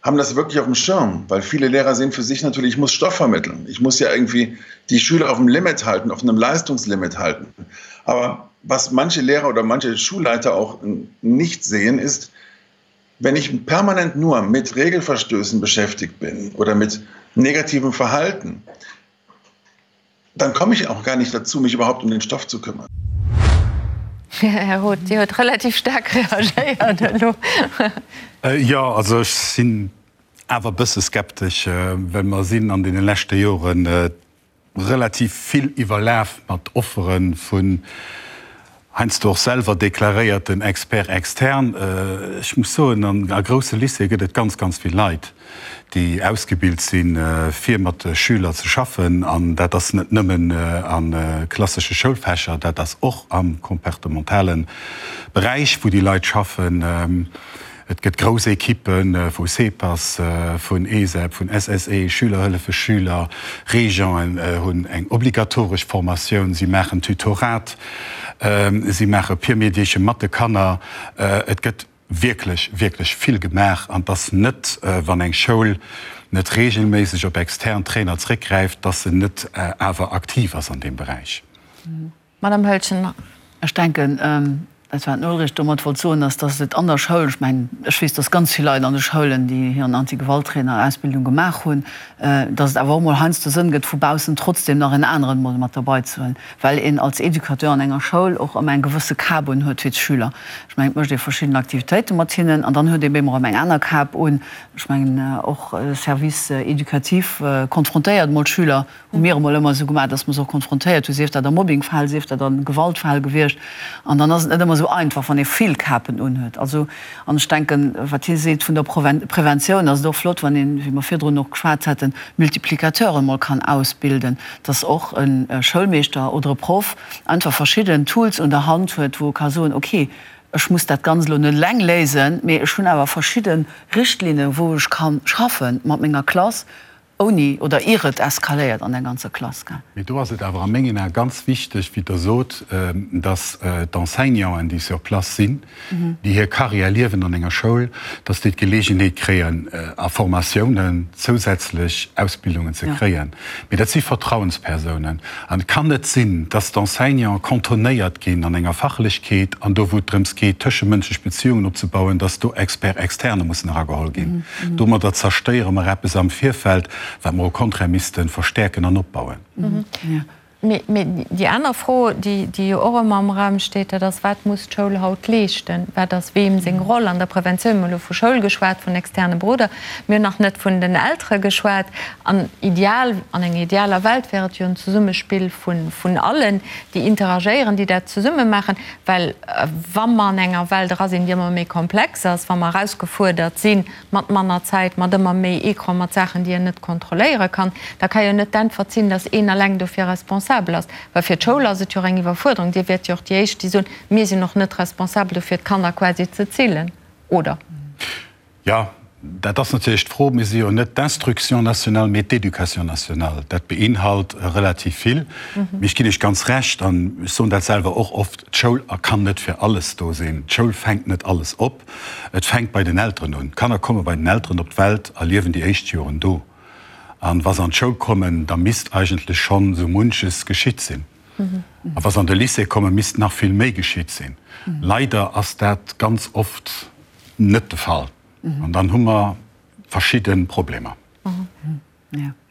haben das wirklich auf dem Schirm, weil viele Lehrer sehen für sich natürlich, ich muss Stoff vermitteln. Ich muss ja irgendwie die Schüler auf dem Limit halten, auf einem Leistungslimit halten. Aber was manche Lehrer oder manche Schulleiter auch nicht sehen, ist, wenn ich permanent nur mit Regelverstößen beschäftigt bin oder mit negativem Verhalten, dann komme ich auch gar nicht dazu, mich überhaupt um den Stoff zu kümmern. Här Roth, Dir huet relativ staark reagéiert elo. Jo, also ech sinn awer e bësse skeptesch, well mer sinn an deene leschte Joren relativ vill iwwerlaf mat Offere vun heiansdo och selwer deklaréierten Experts externes. Ech muss soen, a grousse Lycéeë gëtt et ganz, ganz vill Leit, déi ausgebilt sinn, fir mat Schüler ze schaffen. An dat ass net nëmmen a klassesche Schoulfächer, dat ass och am comportementale Beräich, wou déi Leit schaffen. Et gëtt grouss Ekippe vu CEPAS, vun ESEP, vun SSE, Schüler hëllefe Schüler, Régenten hunn eng obligatoresch Formatioun, si maachen Tutorat, si maache Peer Mediation mat de Kanner. Et gëtt wierklech, wierklech vill gemaach an et ass net, wann eng Schoul net reegelméisseg op extern Trainer zréckgräift, dass se net awer aktiv ass an deem Beräich. Madame Höltgen. Ech denken, dat wat den Ulrich domat wollt soen, ass, dass et an der Schoul, ech mengen, ech weess, dass ganz vill Leit an de Schoulen, déi hiren Anti-Gewalt-Trainer-Ausbildung gemaach hunn, dass et awer och mol heiansdo Sënn gëtt, vu baussen trotzdem nach en aneren mol mat derbei ze huelen, well een als Educateur an enger Schoul och ëmmer eng gewësse Kap un huet fir d'Schüler. Ech mengen, et mécht ee verschidden Aktivitéite mat hinnen an dann huet ee bemol erëm eng aner Kap un. Ech mengen, och Service éducatif konfrontéiert mol d'Schüler Hu mir emol ëmmer esou gemaach, dass mer se och konfrontéiert hu, sief dat a Mobbingfäll, sief dat a Gewaltfäll gewiescht. An dann ass et net ëmmer esou einfach, wann ee vill Kapen unhuet. Also, an ech denken, wat hie seet vun der Preventioun, ass et och flott, wann een, wéi mer virdrun och geschwat haten, Multiplicateuren emol kann ausbilden, dass och e Schoulmeeschter oder e Proff einfach verschidden Tools un der Hand huet, wou e ka soen, okay, ech muss dat Ganzt elo net eleng léisen, mee ech hunn awer verschidde Richtlinnen, wou ech ka schaffe mat menger Klass, Ouni oder ier et eskaléiert an der ganzer Klass, gell? Mee do ass et awer a mengen Ae ganz wichteg, wéi Der sot, dass d'Enseignanten, déi sur place sinn, déi hir Carrière liewen an enger Schoul, dass déi d'Geleegenheet kréien, a Formatiounen zousätzlech Ausbildungen ze kréien. Mee dat si Vertrauenspersounen. An et kann net sinn, dass d'Enseignanten cantonnéiert ginn an enger Fachlechkeet an do, wou et drëms geet, tëschemënschlech Beziungen opzebauen, dass do Experts externes mussen erageholl ginn. Domadder zerstéiere mer eppes am Virfeld, wat mer au contraire misste verstäerken an opbauen. Mee déi aner Fro, déi jo och ëmmer am Raum steet, dat ass, Wat muss d'Schoul haut leeschten? Wat ass weem seng Roll an der Preventioun? Mir hu elo vu Schoul geschwat, vun externe Beroder. Mir hunn nach net vun den Eltere geschwat. An ideal, an enger idealer Welt wär et jo en Zesummespill vun allen, déi interagéieren, déi dat zesumme maachen. Well wa mer an enger Welt era sinn, déi ëmmer méi komplex ass, wa mer erausgefuerdert si mat manner Zäit, mat ëmmer méi Ecran, mat Saachen, déi een net kontrolléiere kann, da ka jo net d'Äntwert sinn, datt een eleng dofir responsabel ass. Well fir d'Schoul ass et jo och eng Iwwerfuerderung. Dir wäert jo och déi Éischt, déi soen, mir sinn och net responsabel dofir, d'Kanner quasi ze zillen, oder? Jo, dat ass natierlech d'Fro. Mir si jo net d'Instruction nationale, mee d'Éducation nationale. Dat beinhalt relativ vill. Mee ech ginn Iech ganz Recht, an ech soen dat selwer och oft, D'Schoul kann net fir alles do sinn. D'Schoul fänkt net alles op. Et fänkt bei den Elteren un. D'Kanner komme bei den Elteren op d'Welt a liewen déi éischt Joren do. An wa se an d'Schoul kommen, da misst eigentlech schonn esou munches geschitt sinn. A wa se an de Lycée kommen, misst nach vill méi geschitt sinn. Leider ass dat ganz oft net de Fall. An dann hu mer verschidde Problemer.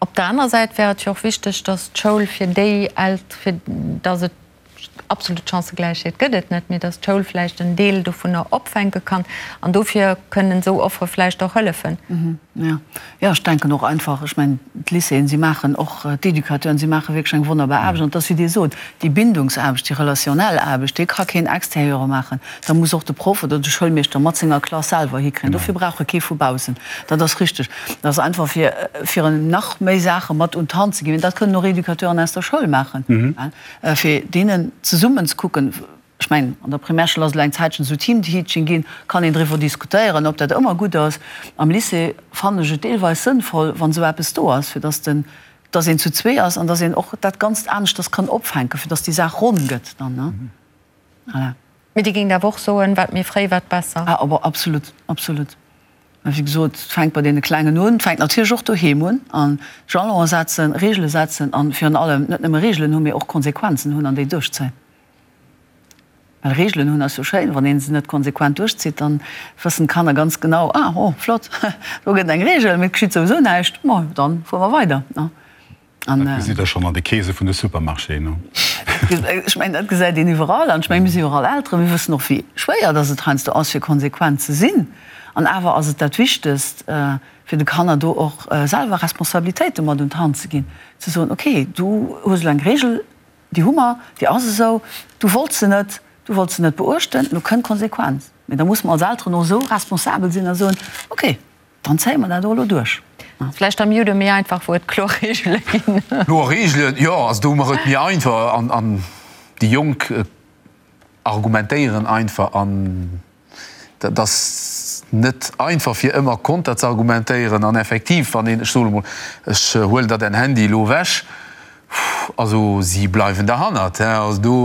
Op der aner Säit wär et jo och wichteg, datt d'Schoul fir déi Elt-, fir datt et absolut Chancëgläichheet gëtt et net, mee datt d'Schoul vläicht en Deel dovunner opfänke kann. An dofir kënnen esou Offere vläicht och hëllefen. Jo, jo, ech denken och einfach, ech mengen, d'Lycéeën, si maachen och, d'Educateuren, si maache wierklech eng wonnerbar Aarbecht. An et ass, wéi Dir sot, déi Bindungsaarbecht, déi relationnel Aarbecht, déi ka keen Extérieure maachen. Da muss och de Proff oder de Schoulmeeschter mat senger Klass selwer hikréien. Dofir brauch e kee vu baussen. Dat ass richteg. Dat ass einfach, fir, fir en nach méi Saache mat un d'Hand ze ginn. Mä dat kënnen och Educateuren aus der Schoul maachen, fir deenen zesummen ze kucken. Ech mengen, an der Primärschoul ass elo eng Zäitchen esou Teamteaching ginn, kann een driwwer diskutéieren, ob dat ëmmer gutt ass. Am Lycée fannen ech et deelweis sënnvoll, wann esou eppes do ass, fir dass den, dass een zu zwee ass an dass een och dat Ganzt aneschters kann opfänken, fir dass déi Saach ronn gëtt dann, ne? Voilà. Mee Dir géingt awer och soen, wat méi fréi, wat besser? Ah, awer absolut, absolut. Mä wéi gesot, et fänkt bei deene Klengen un, et fänkt natierlech och doheem un, an Jalone setzen, Reegele setzen an virun allem net nëmme Reegelen hunn, mee och Konsequenzen hunn an déi duerchzéien. Well Reegelen hunn ass jo schéin, wann ee se net konsequent duerchzitt, dann wëssen d'Kanner ganz genau, ah, oh, flott, do gëtt eng Reegel, mee et geschitt souwisou näischt, ma dann fuere mer weider. An dat gesitt Der schonn an de Keese vun de Supermarchéen, no? Ech mengen, dat gesäit een iwwerall. An ech mengen, mir si jo och all Elteren, mir wëssen och, wéi schwéier dass et heiansdo ass, fir konsequent ze sinn. An awer ass et dat Wichtegst, fir de Kanner do och selwer Responsabilitéite mat un d'Hand ze ginn, ze soen, okay, du hues elo eng Reegel, déi hu mer, déi ass esou, du wollts se net, du wollts se net beuechten, elo kënnt d'Konsequenz. Mee da musse mer als Elteren och esou responsabel sinn a soen, okay, Dann zéie mer dat och elo duerch. Vläicht am Judo méi einfach, wou et kloer Reegele ginn. Kloer Reegelen, jo, also do hu mer et méi einfach an an déi Jonk argumentéieren einfach an dat ass net einfach fir ëmmer konter ze argumentéieren an effektiv wann een, ech soen emol, ech huelen der däin Handy elo ewech, also si bleiwen derhannert, also do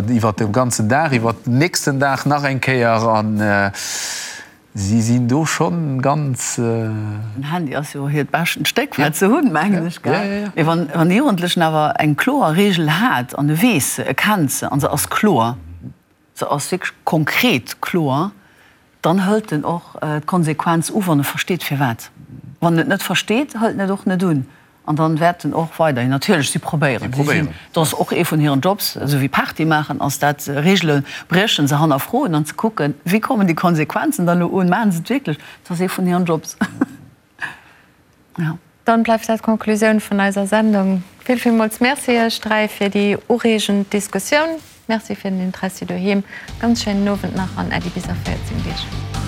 iwwert de ganzen Dag, iwwert den nächsten Dag nach eng Kéier an. Si sinn do schonn ganz. Den Handy ass jo hiert beschten Stéck wat se hunn, mengen ech, gell? Mee wann e Jugendlechen awer eng kloer Reegel hat an e weess se, e kennt se an se ass kloer, se ass wierklech konkret kloer, dann hëlt en och d'Konsequenz u wann e versteet firwat. Wann en et net versteet, hëlt en et och net un. An dann wäert en och weiderhin natierlech, si probéieren, si sinn, dat ass och ee vun hiren Jobs, esou wéi Party maachen ass dat, Reegele briechen, se hannerfroen an ze kucken, wéi kommen déi Konsequenzen dann elo un, maachen se et wierklech? Dat ass ee vun hiren Jobs. Jo. Dann bleift dat d'Conclusioun vun eiser Sendung. Vill, villmools Merci Iech 3 fir déi ureegend Diskussioun. Merci fir den Interessi doheem. Ganz schéinen Owend nach an Äddi bis a 14 Deeg.